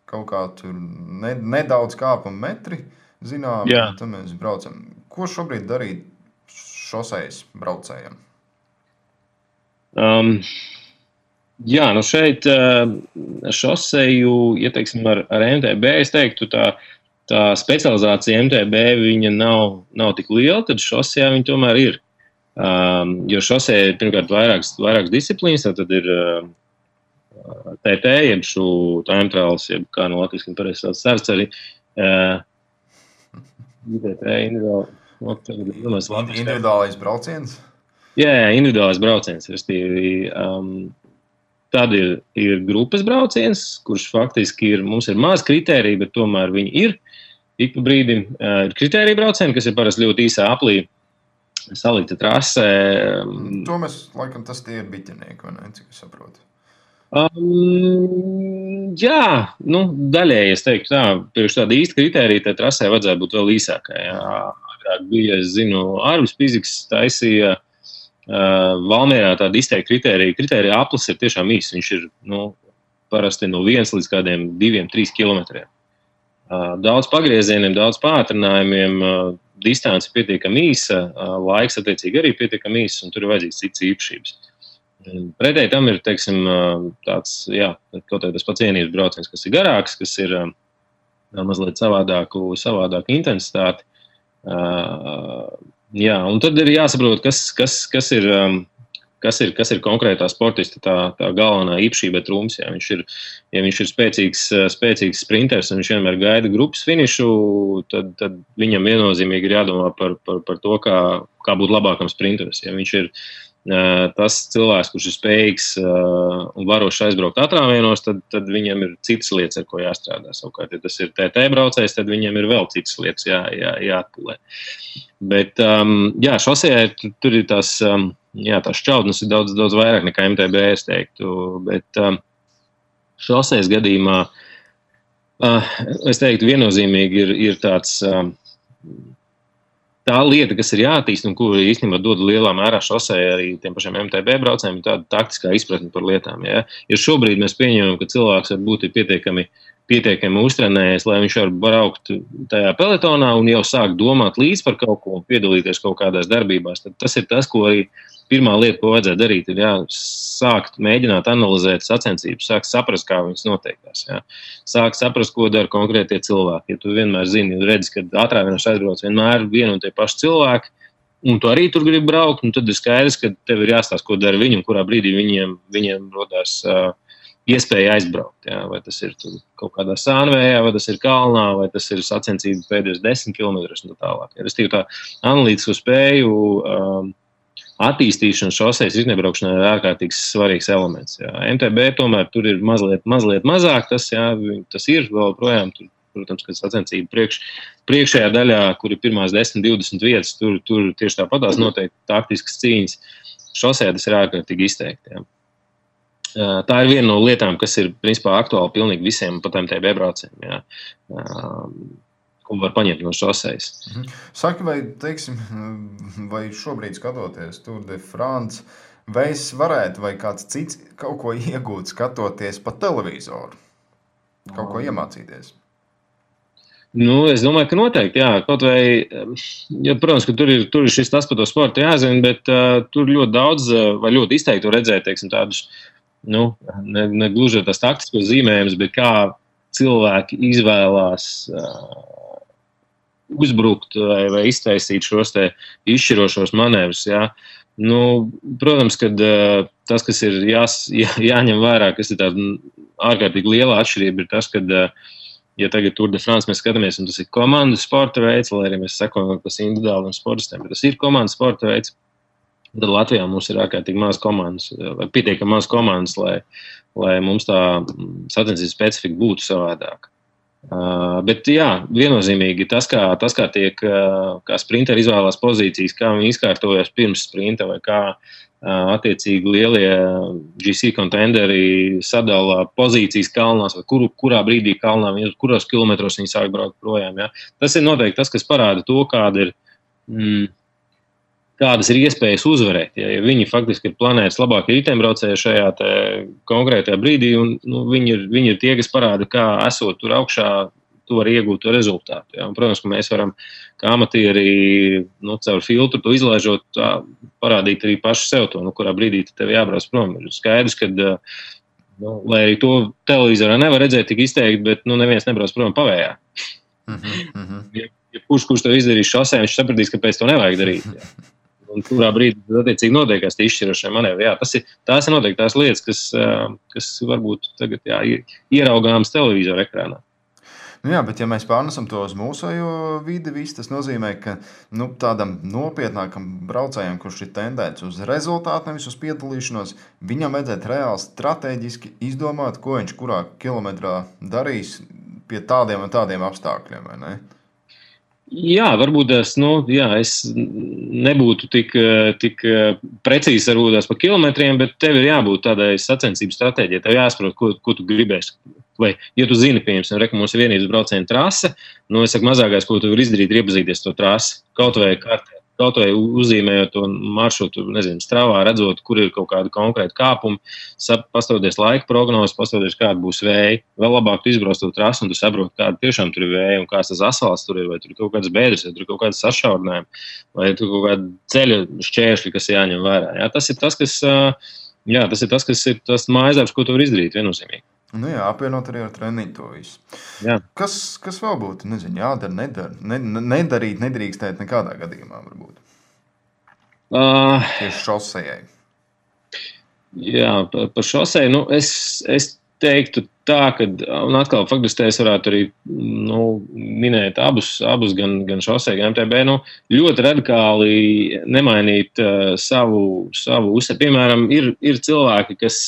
Kaut kā tur nedaudz kāpam metri, zinām, tad mēs braucam. Ko šobrīd darīt šosejas braucējiem? Jā, šeit šoseju, ja teiksim ar MTB, es teiktu tā specializācija MTB viņa nav tik liela, tad šosejā viņa tomēr ir. Jo šosejā ir pirmkārt vairākas disciplīnas, tad ir TT, jeb šo time trials, jeb kā no latviski pareizi sauc sarceri. Individuālais brauciens? Jā, individuālais brauciens. Tad ir grupas brauciens, kurš faktiski mums ir maz kritērija, bet tomēr viņi ir. Ik pa brīdim ir kritērija braucieni, kas ir parasti ļoti īsā aplī salikta trasē. To mēs, laikam, tas tie ir biķenieki, vai ne, cik es saprotu? Jā, daļēji es teiktu tā, priekš tāda īsta kritērija, tā trasē vajadzētu būt vēl īsākai. Agrāk bija, es zinu, Arvis Piziks taisīja Valmierā tāda izteikta kritērija. Kritērija aplis ir tiešām īsts. Viņš ir parasti no 1 līdz kādiem 2-3 kilometriem. Daudz pagriezieniem, daudz pātrinājumiem, distance pietiekami īsa, laiks attiecīgi arī pietiekami īss, un tur ir vajadzīgs cits īpašības. Pretēji tam ir, teiksim, tāds, kaut tas pats vienības brauciens, kas ir garāks, kas ir mazliet savādāku intensitāti. Un tad ir jāsaprot, kas ir konkrētā sportista tā galvenā īpašība, trumps. Ja viņš ir spēcīgs sprinters un viņš vienmēr gaida grupas finišu, tad viņam viennozīmīgi ir jādomā par to, kā būt labākam sprinteris. Ja viņš ir tas cilvēks, kurš ir spējīgs un varošs aizbraukt atrāvienos, tad viņam ir citas lietas, ar ko jāstrādā. Savukārt, ja tas ir TT braucējs, tad viņam ir vēl citas lietas jāatpulē. Bet, šosejā tur ir tās jā, tās šķautnes ir daudz, daudz vairāk nekā MTB, es teiktu. Bet šosejas gadījumā, es teiktu, viennozīmīgi ir tāds tā lieta, kas ir jāattīst un ko īstenībā dod lielā mērā šoseja arī tiem pašiem MTB braucējiem, ir tāda taktiskā izpratne par lietām. Ja? Ja šobrīd mēs pieņemam, ka cilvēks varbūt ir pietiekami uztrenējies, lai viņš var braukt tajā peletonā un jau sāk domāt līdz par kaut ko un piedalīties kaut kādās darbībās, tad tas ir tas, ko arī pirmā lieta, ko vajadzētu darīt, ir sākt mēģināt analizēt sacensības, sākt saprast, kā viņas noteiktās. Sākt saprast, ko dara konkrētie cilvēki. Ja tu vienmēr zini, redzi, ka ātrākais aizbrauc vienmēr vienu un tie paši cilvēki, un tu arī tur gribi braukt, un tad ir skaidrs, ka tev ir jāstāsta, ko dara viņi un kurā brīdī viņiem rodās iespēja aizbraukt. Ja? Vai tas ir kaut kādā sānvējā, vai tas ir kalnā, vai tas ir sacensība pēdējos 10 kilometrus un tā tālāk. Ja? Restīvi tā analītisko spēju attīstīšana šosejas iznebraukšanā ir ārkārtīgi svarīgs elements. Jā. MTB tomēr tur ir mazliet mazāk, tas ir vēl projām, tur, protams, kad sacensība priekšējā daļā, kur ir pirmās 10-20 vietas, tur tieši tāpatās noteikti taktiskas cīņas. Šosejā tas ir ārkārtīgi izteikti. Jā. Tā ir viena no lietām, kas ir principā aktuāli pilnīgi visiem pat MTB braucējiem. Jā. Ko var paņemt no šosejas. Saki, vai šobrīd skatoties Tour de France, vai es varētu vai kāds cits kaut ko iegūt skatoties pa televizoru? Kaut ko iemācīties? Nu, es domāju, ka noteikti, jā. Kaut vai, protams, ka tur ir šis tas par to sportu jāzina, bet tur ļoti daudz vai ļoti izteikti redzēt, teiksim, tādus, ne gluži tās taktiskos zīmējumus, bet kā cilvēki izvēlās uzbrukt vai iztaisīt šos te izšķirošos manevrus. Ja? Protams, ka tas, kas ir jāņem vērā, kas ir tāda ārkārtīgi liela atšķirība, ir tas, ka, ja tagad Tour de France mēs skatāmies, un tas ir komandu sporta veids, lai arī mēs sekojam par individuāliem sportistiem, bet tas ir komandu sporta veids, tad Latvijā mums ir ārkārtīgi maz komandas, vai pietiekami maz komandas, lai mums tā sacensības specifika būtu savādāka. Bet jā, viennozīmīgi tas, kā tiek, kā sprinteri izvēlās pozīcijas, kā viņi izkārtojas pirms sprinta vai kā attiecīgi lielie GC kontenderi sadala pozīcijas kalnās vai kurā brīdī kalnā, kuros kilometros viņi sāk braukt projām. Ja? Tas ir noteikti tas, kas parāda to, kādas ir iespējas uzvarēt. Ja viņi faktiski ir planētas labākie riteņbraucēji šajā konkrētajā brīdī, un viņi ir tie, kas parāda, kā esot tur augšā, tu vari iegūt to rezultātu. Ja? Un, protams, ka mēs varam, kā amatieri, caur filtru to izlaižot, parādīt arī paši sev to, kurā brīdī tev jābrauc prom. Ir skaidrs, ka, lai arī to televizorā nevar redzēt tik izteikti, bet neviens nebrauc prom pavējā. Ja kurš to izdarīs šosē, viņš sapratīs, ka pēc to nevajag darīt. Ja? Un kurā brīdī attiecīgi notiekās tie izšķirošie manevri. Jā, tās ir noteikti tās lietas, kas varbūt tagad ieraugāmas televizora ekrānā. Jā, bet ja mēs pārnesam to uz mūsējo vidi, tas nozīmē, ka tādam nopietnākam braucējam, kurš ir tendēts uz rezultātu, nevis uz piedalīšanos, viņam vajadzētu reāli strateģiski izdomāt, ko viņš kurā kilometrā darīs pie tādiem un tādiem apstākļiem, vai ne? Jā, varbūt es nebūtu tik precīzi varbūt par kilometriem, bet tev ir jābūt tādai sacensību stratēģijai. Tev jāsaprot, ko tu gribēsi. Vai, ja tu zini, piemēram, ka mums ir vienības brauciena trase, es saku, mazākais, ko tu vari izdarīt, ir iepazīties to trasi. Kaut vai kartē, kaut vai uzzīmējot to maršrutu, stravā, redzot, kur ir kaut kāda konkrēta kāpuma, pastoties laika prognozes, pastoties, kāda būs vēja. Vēl labāk tu izbrauc to trasi un tu saproti, kāda tiešām tur ir vēja un kāds tas asfalts tur ir, vai tur ir kaut kādas bēdras, vai tur ir kaut kādas sašaurinājumi, vai tur ir kaut kāda ceļa šķēršļi, kas jāņem vērā. Jā, tas ir tas, kas ir tas mājasdarbs, ko tu vari izdarīt viennozīmīgi. Apvienot arī ar treniņu to visu. Jā. Kas vēl būtu? Jādara, nedarīt, nedrīkstēt nekādā gadījumā varbūt. Tieši šosejai. Jā, par šoseju, es teiktu tā, ka, un atkal faktiski es varētu arī minēt abus gan šoseju, gan MTB, ļoti radikāli nemainīt savu uzsver. Piemēram, ir cilvēki, kas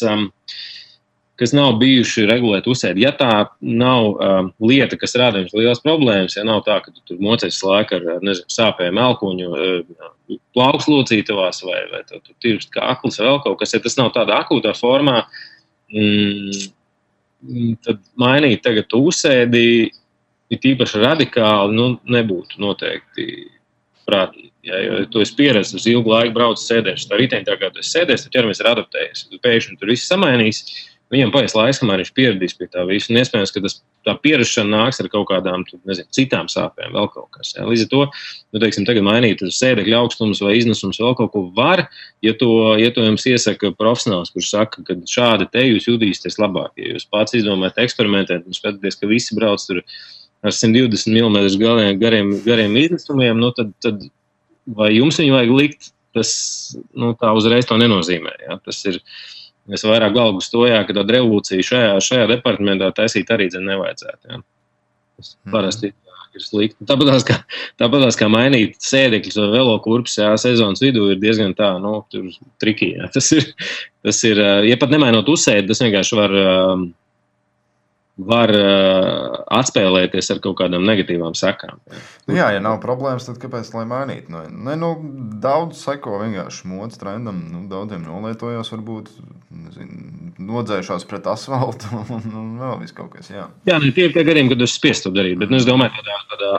kas nav bijuši regulēt uzsēdi. Ja tā nav lieta, kas rāda jums liels problēmas, ja nav tā, ka tu tur mocies laiku ar sāpēm elkuņu, plaukslocītavās vai tu tirkst kā aklis vai vēl kaut kas, ja tas nav tādā akūtā formā, tad mainīt tagad uzsēdi ir tīpaši radikāli, nebūtu noteikti prātīgi. Ja, jo tu esi pieredzis uz ilgu laiku braucis sēdēšs. Tā riteņi tā kā tu esi sēdēs, tad ķermenis ir adaptējies. Tu pēkšņi tur viss samainīs, viņam paies laiks, kamēr viņš pieradīs pie tā visu. Un iespējams, ka tā pierašana nāks ar kaut kādām, citām sāpēm, vēl kaut kas. Ja. Līdz ar to, teiksim, tagad mainīt uz sēdekļa augstums vai iznesums vēl kaut ko var, ja to jums iesaka profesionāls, kurš saka, ka šādi te jūs jutīsieties labāk. Ja jūs pats izdomājat eksperimentēt un skatāties, ka visi brauc tur ar 120 mm gariem iznesumiem, tad vai jums viņu vajag likt, tas tā uzreiz to nenozīmē. Ja? Tas ir vairāk galvu stojā, ka tāda revolūcija šajā departamentā taisīt arī nevajadzētu. Ja? Tas parasti ir slikti. Tāpatās kā mainīt sēdekļus vai velokurpes sezonas vidū ir diezgan tā, tur triki. Ja? Tas ir, ja pat nemainot uzsēdi, tas vienkārši var atspēlēties ar kaut kādām negatīvām sekām. Ja nav problēmas, tad kāpēc lai mainītu? Daudz seko vienkārši modes trendam, daudziem nolietojās varbūt, nodzējušās pret asfaltu un vēl viss kaut kas, jā. Jā, tie ir tie gadījumi, kad jūs spiest to darīt, bet es domāju, tādā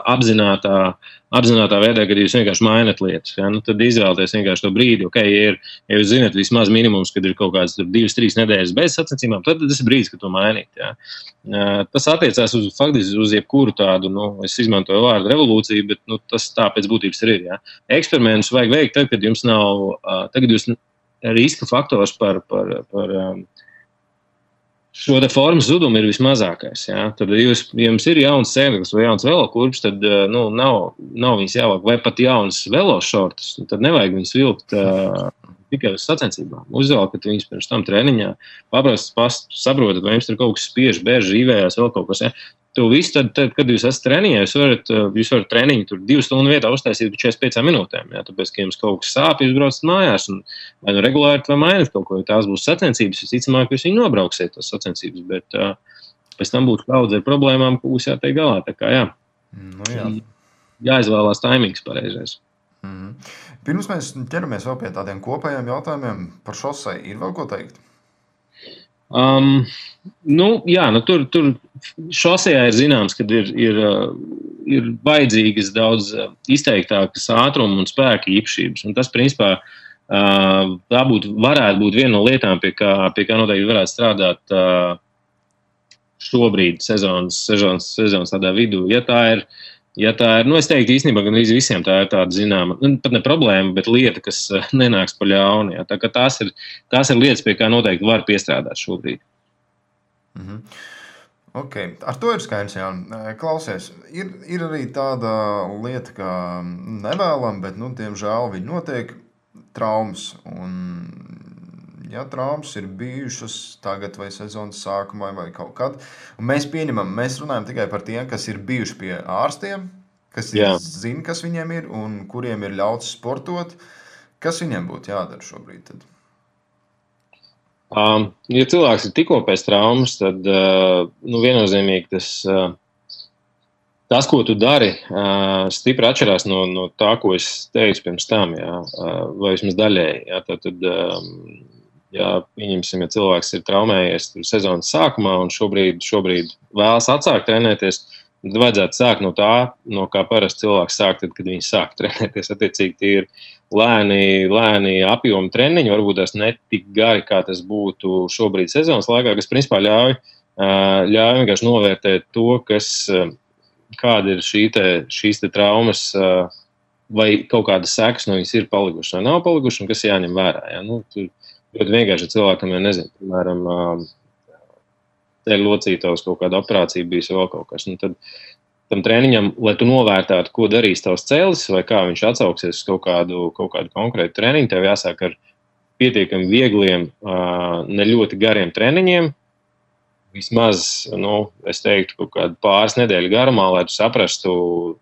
apzinātā veidā, kad jūs vienkārši mainat lietas, ja? Tad izvēlaties vienkārši to brīdi, ja jūs zināt vismaz minimums, kad ir kaut kāds 2-3 nedēļas bez sacensībām, tad tas ir brīdis, kad to mainīt, ja? Tas attiecās faktiski uz jebkuru tādu, es izmantoju vārdu revolūciju, bet tas tā pēc būtības ir. Ja? Eksperimentus vajag veikt tad, kad jums nav, tagad jūs riska faktors par šo te formas zudumu ir vismazākais. Ja? Tad, ja jums ir jauns sēdeklis vai jauns velokurps, tad nav viņas jāvāk, vai pat jauns velošortus, tad nevajag viņas vilkt tikai uz sacensībām. Uzvelkat viņus pirms tam treniņā, saprotat, vai jums tur kaut kas spiež, bēž, rīvējās, vēl kaut kas. Ja? To visu, tad, kad jūs esat treniņā, jūs varat treniņu tur 2 stundu vietā uztaisīt 45 minūtēm. Ja? Tāpēc, ka jums kaut kas sāp, jūs braucat mājās un vai regulāri vai mainat kaut ko, ja tās būs sacensības, visticamāk, jūs viņu nobrauksiet tās sacensības, bet pēc tam būtu daudz ar problēmām, ko būs jātiek galā. Tā kā jā. Jāizvēlās taimings pareizais. Pirms mēs ķeramies vēl pie tādiem kopējiem jautājumiem par šoseju, ir vēl ko teikt? Tur šosejā ir zināms, ka ir vajadzīgas daudz izteiktākas ātruma un spēka īpašības. Un tas, principā, varētu būt viena no lietām, pie kā noteikti varētu strādāt šobrīd sezonas tādā vidū. Ja tā ir, es teiktu īstenībā, gan visiem tā ir tāda zināma, pat ne problēma, bet lieta, kas nenāks pa ļaunu. Ja. Tā kā tās ir lietas, pie kā noteikti var piestrādāt šobrīd. Okay. Ar to ir skaidrs, Jāni. Klausies, ir arī tāda lieta, kā nevēlam, bet, diemžēl viņi notiek traumas. Un, ja traumas ir bijušas tagad vai sezonas sākumā vai kaut kad, un mēs runājam tikai par tiem, kas ir bijuši pie ārstiem, kas zina, kas viņiem ir un kuriem ir ļauts sportot. Kas viņiem būtu jādara šobrīd tad? Ja cilvēks ir tikko pēc traumas, tad viennozīmīgi tas, ko tu dari, stipri atšķirās no tā, ko es teicu pirms tam, vai vismaz daļēji. Tad pieņemsim, ja cilvēks ir traumējies sezonas sākumā un šobrīd vēlas atsākt trenēties, tad vajadzētu sākt no tā, no kā parasti cilvēks sāk, tad, kad viņi sāk trenēties. Attiecīgi, tie ir lēni apjomi treniņi, varbūt tās ne tik gari, kā tas būtu šobrīd sezonas laikā, kas principā ļauj vienkārši novērtēt to, kāda ir šīs traumas, vai kaut kādas sekas no viņas ir palikušas vai nav palikušas, un kas jāņem vērā. Ja? Ļoti vienkārši cilvēkam, ja nezinu, piemēram, ceļu locītavas kaut kāda operācija bijis vēl kaut kas. Tad tam treniņam, lai tu novērtētu, ko darīs tavs cēlis vai kā viņš atsauksies uz kaut kādu konkrētu treniņu, tev jāsāk ar pietiekami viegliem, ne ļoti gariem treniņiem. Vismaz, es teiktu, kaut kādu pāris nedēļu garumā, lai tu saprastu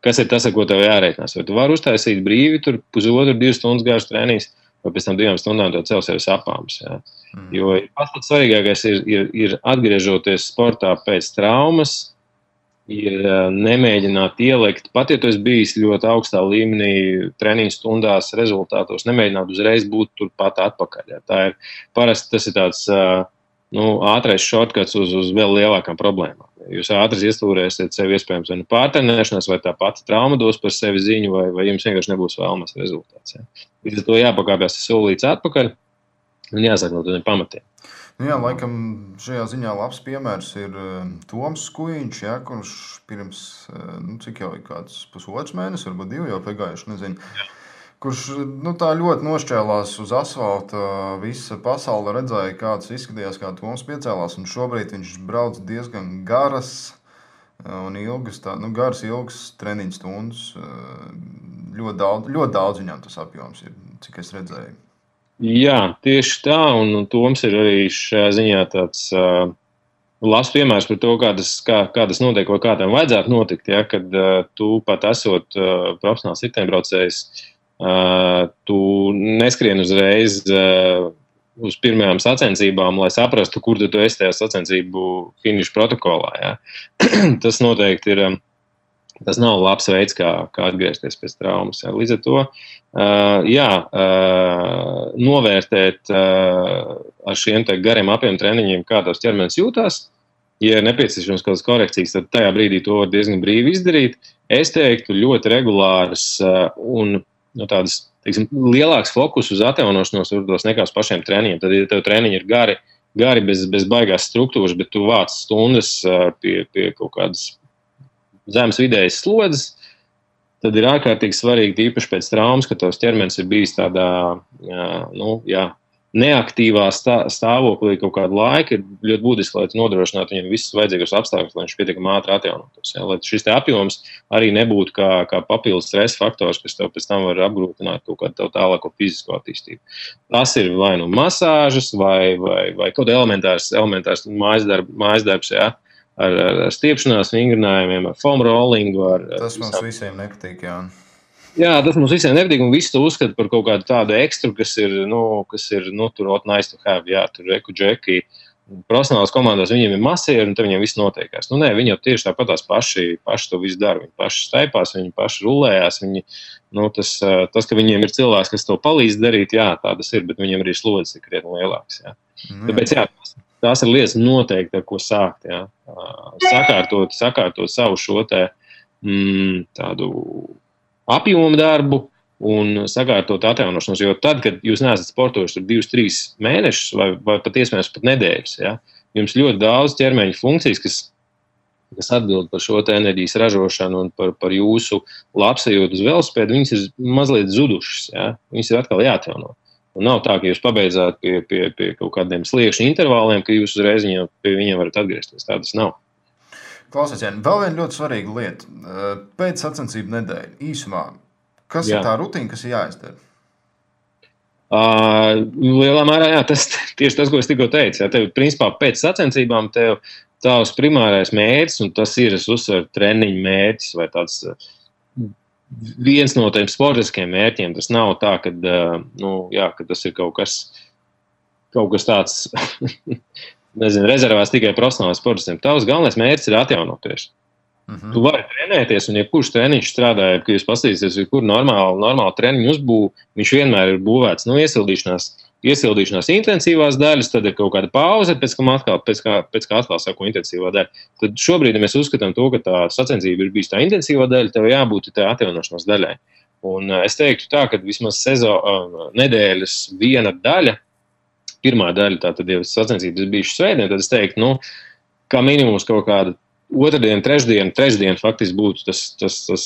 kas ir tas, ar ko tev jārēķinās. Vai tu vari uztaisīt brīvi, 1,5–2 stundas garš treniņš, vai pēc tam 2 stundām tev celsies apāms. Jā. Jo pats svarīgākais ir atgriežoties sportā pēc traumas, ir nemēģināt ielikt, pat ja tu esi bijis ļoti augstā līmenī treniņu stundās rezultātos, nemēģināt uzreiz būt turpat atpakaļ. Jā. Parasti tas ir tāds ātrais shortcuts uz vēl lielākām problēmām. Jūs ātri iestūrēsiet sevi iespējams vai pārtrenēšanās, vai tā pati trauma dos par sevi ziņu, vai jums vienkārši nebūs vēlamas rezultāts. Jā. Līdz ar to jāpakāpjas solīts atpakaļ un jāsāk no tādiem pamatiem. Jā, laikam šajā ziņā labs piemērs ir Toms Skujiņš, jā, kurš pirms, cik jau ir kāds pusotrs mēnesis, varbūt 2 jau pagājuši, nezinu, kurš tā ļoti nošķēlās uz asfalta, visa pasaule redzēja, kāds izskatījās, kā Toms piecēlās, un šobrīd viņš brauc diezgan garas un ilgas treniņu stundas. Ļoti daudz viņam tas apjoms ir, cik es redzēju. Jā, tieši tā, un Toms ir arī šajā ziņā tāds labs piemērs par to, kā tas notiek, vai kā tam vajadzētu notikt, ja, kad tu pat esot profesionāls riteņbraucējs, tu neskrien uzreiz uz pirmajām sacensībām, lai saprastu, kur tu esi tajā sacensību finiša protokolā. Ja. Tas noteikti ir. Tas nav labs veids, kā atgriezties pēc traumas. Jā. Līdz ar to novērtēt ar šiem gariem apjom treniņiem, kā tavs ķermenis jūtās. Ja ir nepieciešams kādas korekcijas, tad tajā brīdī to var diezgan brīvi izdarīt. Es teiktu, ļoti regulāras un tādas, lielāks fokus uz atjaunošanos varbūt nekā uz pašiem treniņiem. Tad, ja tev treniņi ir gari bez baigās struktūras, bet tu vāc stundas pie kaut kādas zemes vidējas slodzes, tad ir ārkārtīgi svarīgi, īpaši pēc traumas, ka tavs ķermenis ir bijis tādā neaktīvā stāvoklī kaut kādu laiku, ir ļoti būtiski, lai tu nodrošinātu viņam visus vajadzīgos apstākļus, lai viņš pietiekami ātri atjaunotos. Ja? Lai šis apjoms arī nebūtu kā papildus stresa faktors, kas tev pēc tam var apgrūtināt kaut kādu tālāko fizisko attīstību. Tas ir vai nu masāžas, vai kaut elementārs mājas darbs, ja? Ar stiepšanās vingrinājumiem, ar foam rollingu. Tas mums visiem nepatīk, jā. Jā, tas mums visiem nepatīk, un visi to uzskata par kaut kādu tādu ekstru, kas ir tur nice to have, jā, tur džeki. Profesionālās komandās viņiem ir masieri, un tad viņiem viss notiekās. Nē, viņi jau tieši tāpatās paši to visu dara. Viņi paši staipās, viņi paši rulējās. Tas, ka viņiem ir cilvēks, kas to palīdz darīt, jā, tā tas ir, bet viņiem arī slodzes ir krietni lielāks. Jā. Tāpēc, jā, tās ir lietas noteikti, ar ko sākt. Ja? Sakārtot savu šo tādu apjomu darbu un sakārtot atjaunošanos. Jo tad, kad jūs neesat sportojuši 2-3 mēnešus vai pat iespējams pat nedēļas, ja? Jums ļoti daudz ķermeņa funkcijas, kas atbild par šo enerģijas ražošanu un par jūsu labsajūtu uz velosipēdu, viņas ir mazliet zudušas. Ja? Viņas ir atkal jāatjauno. Un nav tā, ka jūs pabeidzāt pie kaut kādiem sliekšņu intervāliem, ka jūs uzreiz pie viņiem varat atgriezties. Tā tas nav. Klausies, Jāni, vēl viena ļoti svarīga lieta. Pēc sacensību nedēļa, īsumā, kas ir tā rutīna, kas ir jāizdara? Lielā mērā, jā, tieši tas, ko es tikko teicu. Jā, tev, principā, pēc sacensībām tavs primārais mērķis, un tas ir, es uzsveru, treniņu mērķis vai tāds viens no tiem sportiskiem mērķiem. Tas nav tā, ka tas ir kaut kas tāds, nezinu, rezervēts tikai profesionāliem sportistiem. Tavs galvenais mērķis ir atjaunoties. Tu vari trenēties, un jebkurš treniņš strādāja, kad jūs paskatīsieties, kur normāli treniņu uzbūvu, viņš vienmēr ir būvēts iesildīšanās intensīvās daļas, tad ir kaut kāda pauze, pēc kā atkal sako intensīvā daļa. Tad šobrīd, ja mēs uzskatām to, ka tā sacensība ir bijis tā intensīvā daļa, tev jābūt tā atjaunošanās daļai. Un es teiktu tā, ka vismaz nedēļas viena daļa, pirmā daļa, tātad, ja sacensības bijušas svētdien, tad es teiktu, kā minimums kaut kāda otrdien, trešdien faktiski būtu tas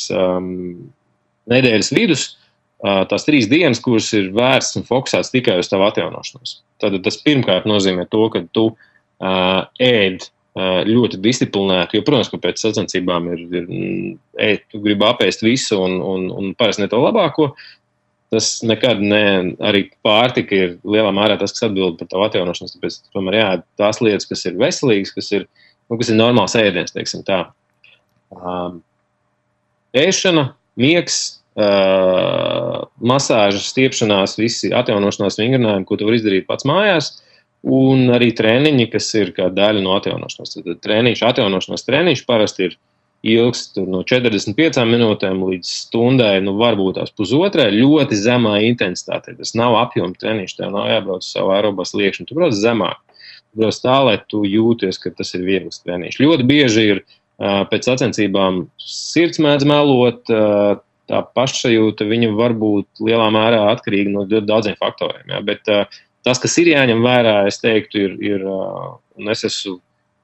nedēļas vidus, tās 3 dienas, kuras ir vērsts un fokusēts tikai uz tavu atjaunošanos. Tad tas pirmkārt nozīmē to, ka tu ēd ļoti disciplinēti, jo, protams, ka pēc sacensībām tu gribi apēst visu un parasti ne to labāko. Tas nekad arī pārtika ir lielā mērā tas, kas atbild par tavu atjaunošanos, tāpēc tomēr jāēd tās lietas, kas ir veselīgas, kas ir normāls ēdiens, teiksim tā. Ēšana, miegs, masāžas, stiepšanās, visi atjaunošanās vingrinājumi, ko tu vari izdarīt pats mājās, un arī treniņi, kas ir kā daļa no atjaunošanās. Tad atjaunošanās treniņš parasti ir ilgst no 45 minūtēm līdz stundai, varbūt tās pusotrai, ļoti zemā intensitātē. Tas nav apjoma treniņš, tev nav jābrauc uz savu aerobā sliekšņu, tu brauc zemāk. Tu brauc tā, lai tu jūties, ka tas ir viegls treniņš. Ļoti bieži ir pēc sacensībām sirds mēdz melot, tā pašsajūta, viņa var būt lielā mērā atkarīga no daudziem faktoriem. Ja? Bet tas, kas ir jāņem vērā, es teiktu, ir un es esmu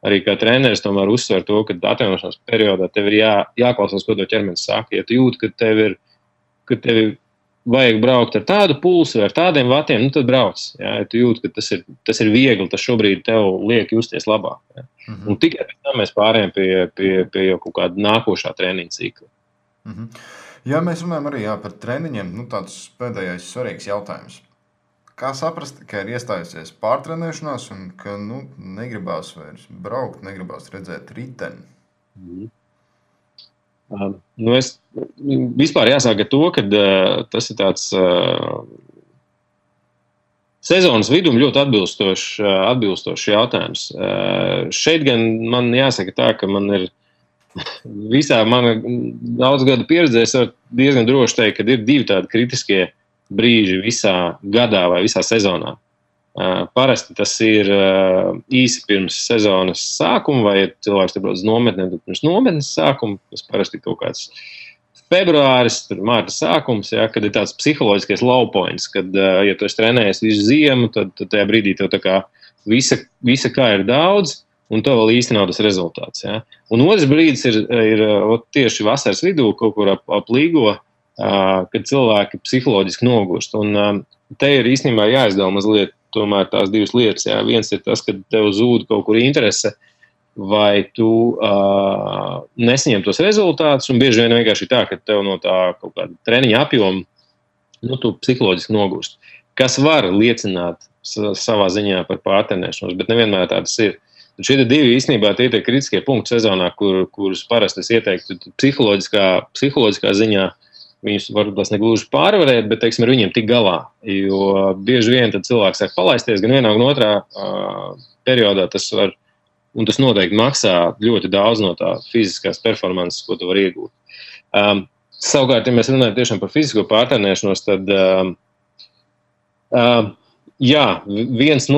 arī kā treneris tomēr uzsver to, ka atjaunošanās periodā tev ir jāklausās, ko to ķermenis saka. Ja tu jūti, ka tev vajag braukt ar tādu pulsu vai ar tādiem vatiem, tad brauc. Ja tu jūti, ka tas ir viegli, tas šobrīd tev liek justies labāk. Ja? Mm-hmm. Un tikai pēc tam mēs pārējām pie jau kaut kāda nākošā treniņa cikla. Mm-hmm. Ja mēs runājam arī par treniņiem, tāds pēdējais svarīgs jautājums. Kā saprast, ka ir iestājusies pārtrenēšanās un ka negribās vairs braukt, negribās redzēt riteni? Es vispār jāsāk ar to, ka tas ir tāds sezonas vidum ļoti atbilstošs jautājums. Šeit gan man jāsaka tā, ka man ir visā mana daudz gadu pieredzē, es varu diezgan droši teikt, ka ir 2 tādi kritiskie brīži visā gadā vai visā sezonā. Parasti tas ir īsi pirms sezonas sākuma, vai ja cilvēks te brauc uz nometnēm, tad pirms nometnes sākuma, tas parasti kaut kāds februāris, mārta sākums, ja, kad ir tāds psiholoģiskais low points, kad, ja tu esi trenējies visu ziemu, tad tajā brīdī tev tā kā visa kā ir daudz, un tev vēl īsti nav tas rezultāts. Ja. Un otrs brīdis ir tieši vasaras vidū, kaut kur ap līgo, kad cilvēki psiholoģiski nogurst. Un te ir īstenībā jāizdala mazliet tomēr tās 2 lietas. Jā. Viens ir tas, ka tev zūd kaut kur interese, vai tu nesaņem tos rezultātus, un bieži vien vienkārši tā, ka tev no tā kaut kāda treniņa apjoma tu psiholoģiski nogurst. Kas var liecināt savā ziņā par pārtrenēšanos, bet nevienmēr tādas ir. Šie 2 īstenībā tie ir kritiskie punkti sezonā, kurus parasti es ieteiktu psiholoģiskā ziņā. Viņus varbūt tās negluži pārvarēt, bet, teiksim, ar viņiem tik galā. Jo bieži vien tad cilvēks sāk palaisties, gan vienā, gan otrā periodā tas var, un tas noteikti maksā ļoti daudz no tā fiziskās performances, ko tu vari iegūt. Savukārt, ja mēs runājam tiešām par fizisko pārtrenēšanos, tad, viens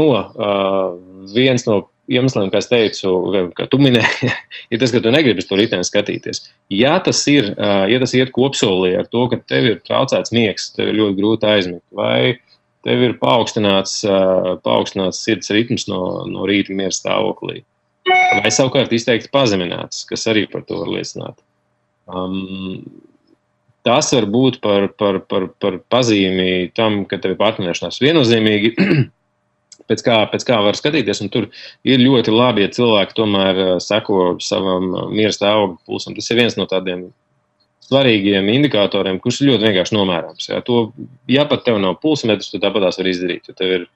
no iemesliem, kā es teicu, kā tu minēji, ir tas, ka tu negribi to riteni skatīties. Ja tas iet kopsolī ar to, ka tev ir traucēts miegs, tev ir ļoti grūti aizmigt, vai tev ir paaugstināts sirds ritms no rīta miera stāvoklī, vai savukārt izteikti pazemināts, kas arī par to var liecināt. Tas var būt par pazīmi tam, ka tev ir pārtrenēšanās viennozīmīgi, pēc kā var skatīties, un tur ir ļoti labi, ja cilvēki tomēr seko savam miera stāvokļa pulsam. Tas ir viens no tādiem svarīgiem indikatoriem, kurš ir ļoti vienkārši nomērāms. Ja pat tev nav pulsmetrs, tu tāpat tās var izdarīt, jo tev ir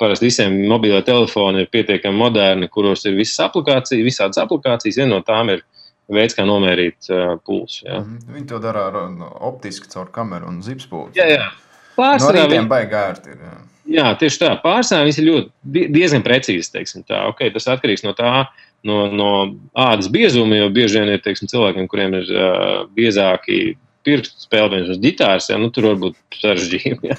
parasti visiem mobilē telefoni ir pietiekami moderni, kuros ir visādas aplikācijas, viena no tām ir veids, kā nomērīt pulsu. Ja. Viņi to dara optiski caur kameru un zipspulci. Jā. No rītiem baigi ērti ir. Jā, tieši tā. Pārsvarā viņas ir diezgan precīzi, teiksim tā. Okay, tas atkarīgs no tā, no ādas biezuma, jo bieži vien ir, teiksim, cilvēkiem, kuriem ir biezāki pirkstu spēlējums uz ģitāras, tur var būt sarežģījumi.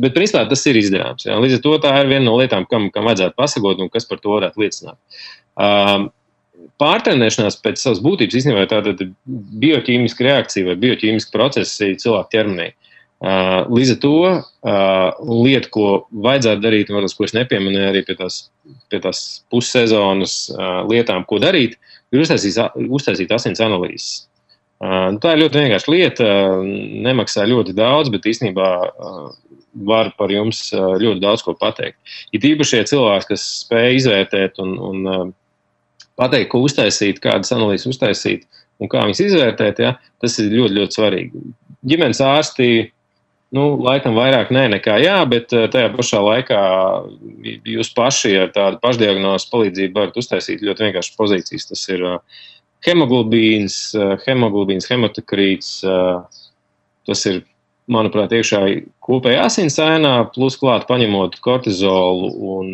Bet principā tas ir izdarāms. Jā. Līdz ar to tā ir viena no lietām, kam vajadzētu pasakot un kas par to varētu liecināt. Pārtrenēšanās pēc savas būtības īstenībā ir tāda bioķīmiska reakcija vai bioķīmiska procesi cilvēku ķermenī. Līdz ar to lieta, ko vajadzētu darīt, un ko es nepieminēju arī pie tās pussezonas lietām, ko darīt, ir uztaisīt asins analīzes. Tā ir ļoti vienkārši lieta, nemaksā ļoti daudz, bet īstenībā var par jums ļoti daudz ko pateikt. Ir īpaši cilvēki, kas spēj izvērtēt un pateikt, ko uztaisīt, kādas analīzes uztaisīt un kā viņas izvērtēt, ja, tas ir ļoti, ļoti svarīgi. Ģimenes ārsti laikam vairāk nekā jā, bet tajā pašā laikā jūs paši ar tādu pašdiagnozes palīdzību varat uztaisīt ļoti vienkārši pozīcijas. Tas ir hemoglobīns, hematokrīts, tas ir, manuprāt, iekšā kopējā asinsainā, plus klāt paņemot kortizolu un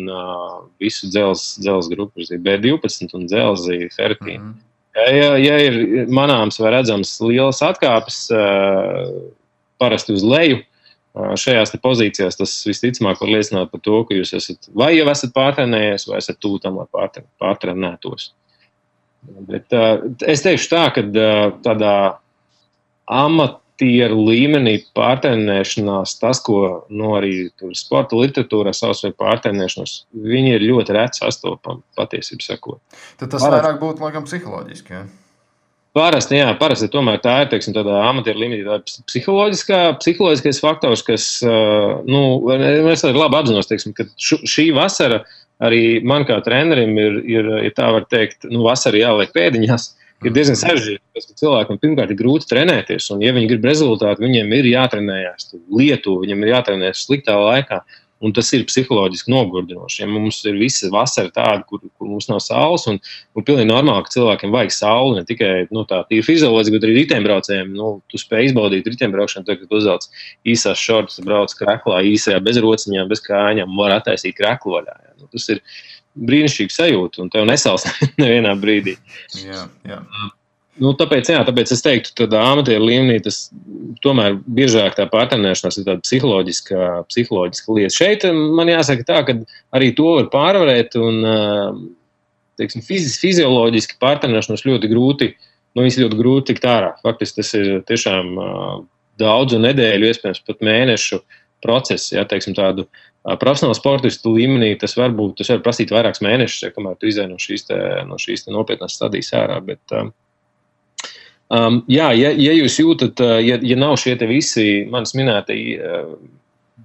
visu dzelzs grupu, B12 un dzelzi, ferritīnu. Ja ir manāms vai redzams lielas atkāpes parasti uz leju, šajās pozīcijās tas visticamāk var liecināt par to, ka jūs vai jau esat pārtrenējies, vai esat tuvu tam, lai pārtrenētos. Bet es teikšu tā, ka tādā amatieru līmenī pārtrenēšanās, tas, ko arī sporta literatūrā savs vai pārtrenēšanos, viņi ir ļoti reti sastopami, patiesību sakot. Tad tas vairāk būtu, laikam, psiholoģiski, ja? Parasti tomēr tā ir, teiksim, tādā amatieru līmenī, tā ir psiholoģiskais faktors, kas, es arī labi apzinos, teiksim, ka šī vasara arī man kā trenerim ir tā var teikt, vasara jāliek pēdiņās, ir diezgan sarežģīti, ka cilvēkam pirmkārt ir grūti trenēties, un ja viņi grib rezultātu, viņiem ir jātrenējās Lietuva, viņiem ir jātrenējas sliktā laikā. Un tas ir psiholoģiski nogurdinoši. Ja mums ir visa vasara tāda, kur mums nav saules, un pilnīgi normāli, ka cilvēkiem vajag sauli, ne tikai tā tīri fizioloģiski, bet arī riteņbraucējiem. Tu spēj izbaudīt riteņbraukšanu, tad, kad uzvelc īsās šortus, brauc kreklā, īsajā, bez rociņām, bez kājām, var attaisīt kreklu vaļā. Ja. Tas ir brīnišķīgi sajūta, un tev nesals nevienā brīdī. Jā. Tāpēc es teiktu, tādā amatieru līmenī tas tomēr biežāk tā pārtrenēšanās ir tāda psiholoģiska lieta. Šeit man jāsaka tā, ka arī to var pārvarēt un, teiksim, fizioloģiski pārtrenēšanos ļoti grūti, ļoti grūti tikt ārā. Faktiski tas ir tiešām daudzu nedēļu, iespējams pat mēnešu process, ja, teiksim, tādu profesionālu sportistu līmenī, tas var prasīt vairākus mēnešus, ja, kamēr tu izēj no šīs nopietnās stadijas ārā, bet ja jūs jūtat, ja nav šie te visi manis minētie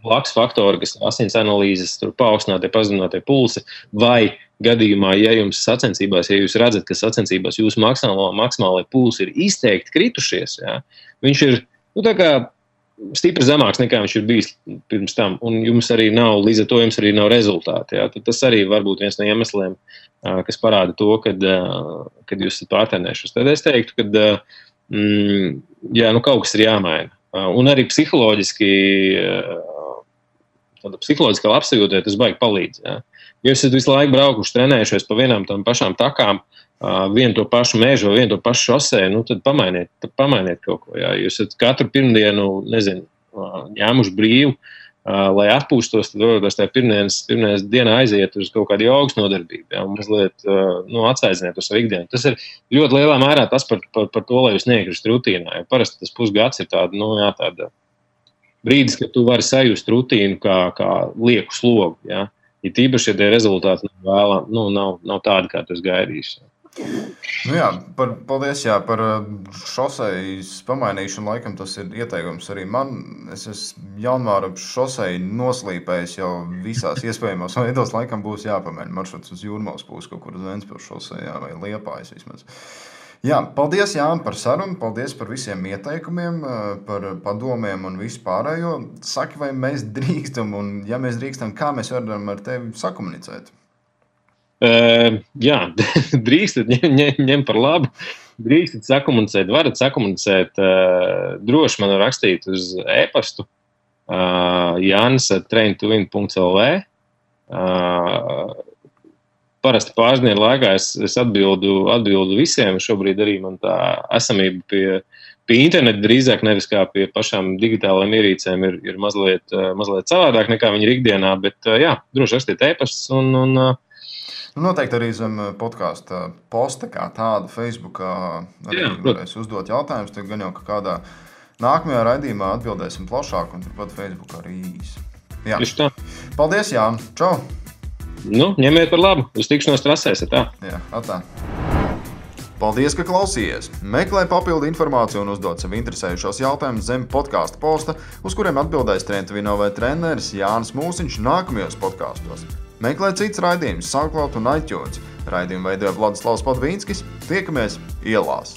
blakus faktori, kas asins analīzes, paaugstinātie, pazeminātie pulsi, vai gadījumā, ja jums sacensībās, ja jūs redzat, ka sacensībās jūsu maksimālai pulsi ir izteikti kritušies, ja, viņš ir, tā kā stipri zemāks nekā viņš ir bijis pirms tam, un jums arī nav, līdz ar to jums arī nav rezultāti. Ja? Tad tas arī var būt viens no iemesliem, kas parāda to, kad jūs esat pārtrenējušies. Tad es teiktu, ka kaut kas ir jāmaina. Un arī psiholoģiskā labsajūtē tas baigi palīdz. Ja? Ja jūs esat visu laiku braukuši, trenējušies pa vienām tam pašām takām, vienu to pašu mežu vai vienu to pašu šosēju, tad pamainiet kaut ko. Jā. Jūs esat katru pirmdienu, ņēmuši brīvu, lai atpūstos, tad varbūt tajā pirmdienas dienā aiziet uz kaut kādu jogas nodarbību, jā, un mazliet atsaidziniet uz savu ikdienu. Tas ir ļoti lielā mērā tas par to, lai jūs neiekristu rutīnā. Jo parasti tas pusgads ir tāda brīdis, kad tu vari sajust rutīnu kā lieku slogu. Jā. Ja tīpaši, ja tie rezultāti nav tādi, kā tu esi gaidījis. Paldies par šosejas pamainīšanu. Laikam tas ir ieteikums arī man. Es esmu janvāra šoseju noslīpējis jau visās iespējamās veidos. Laikam būs jāpamaina maršruts uz Jūrmalas pusi, kaut kur uz Ventspils šosejā vai Liepājas vismaz. Jā, paldies, Jāni, par sarunu, paldies par visiem ieteikumiem, par padomiem un visu pārējo. Saki, vai mēs drīkstam, un ja mēs drīkstam, kā mēs varam ar tevi sakomunicēt? Jā, drīkstat, ņem par labu. Drīkstat sakomunicēt, varat sakomunicēt, droši man rakstīt uz e-pastu janis@traintowin.lv. Parasti pāris dienu laikā es atbildu visiem. Šobrīd arī man tā esamība pie interneta drīzāk nevis kā pie pašām digitālajām ierīcēm ir mazliet savādāk nekā viņi ir ikdienā, bet jā, droši rakstiet e-pastus un noteikti arī zem podkāsta posta kā tāda Facebookā arī varēs uzdot jautājumus. Tad gan jau kādā nākamajā raidījumā atbildēsim plašāk un turpat Facebookā arī īsi. Jā. Paldies, Jāni. Čau! Ņemiet par labu. Uz tikšanos trasēs. Tā. Jā, atā. Paldies, ka klausījies! Meklē papildu informāciju un uzdod sev interesējušos jautājumus zem podkāsta posta, uz kuriem atbildēs Trentuvino vai treneris Jānis Mūsiņš nākamajos podkāstos. Meklē cits raidījums SoundCloud un iTunes. Raidījumu veidoja Vladislavs Podvīnskis. Tiekamies ielās!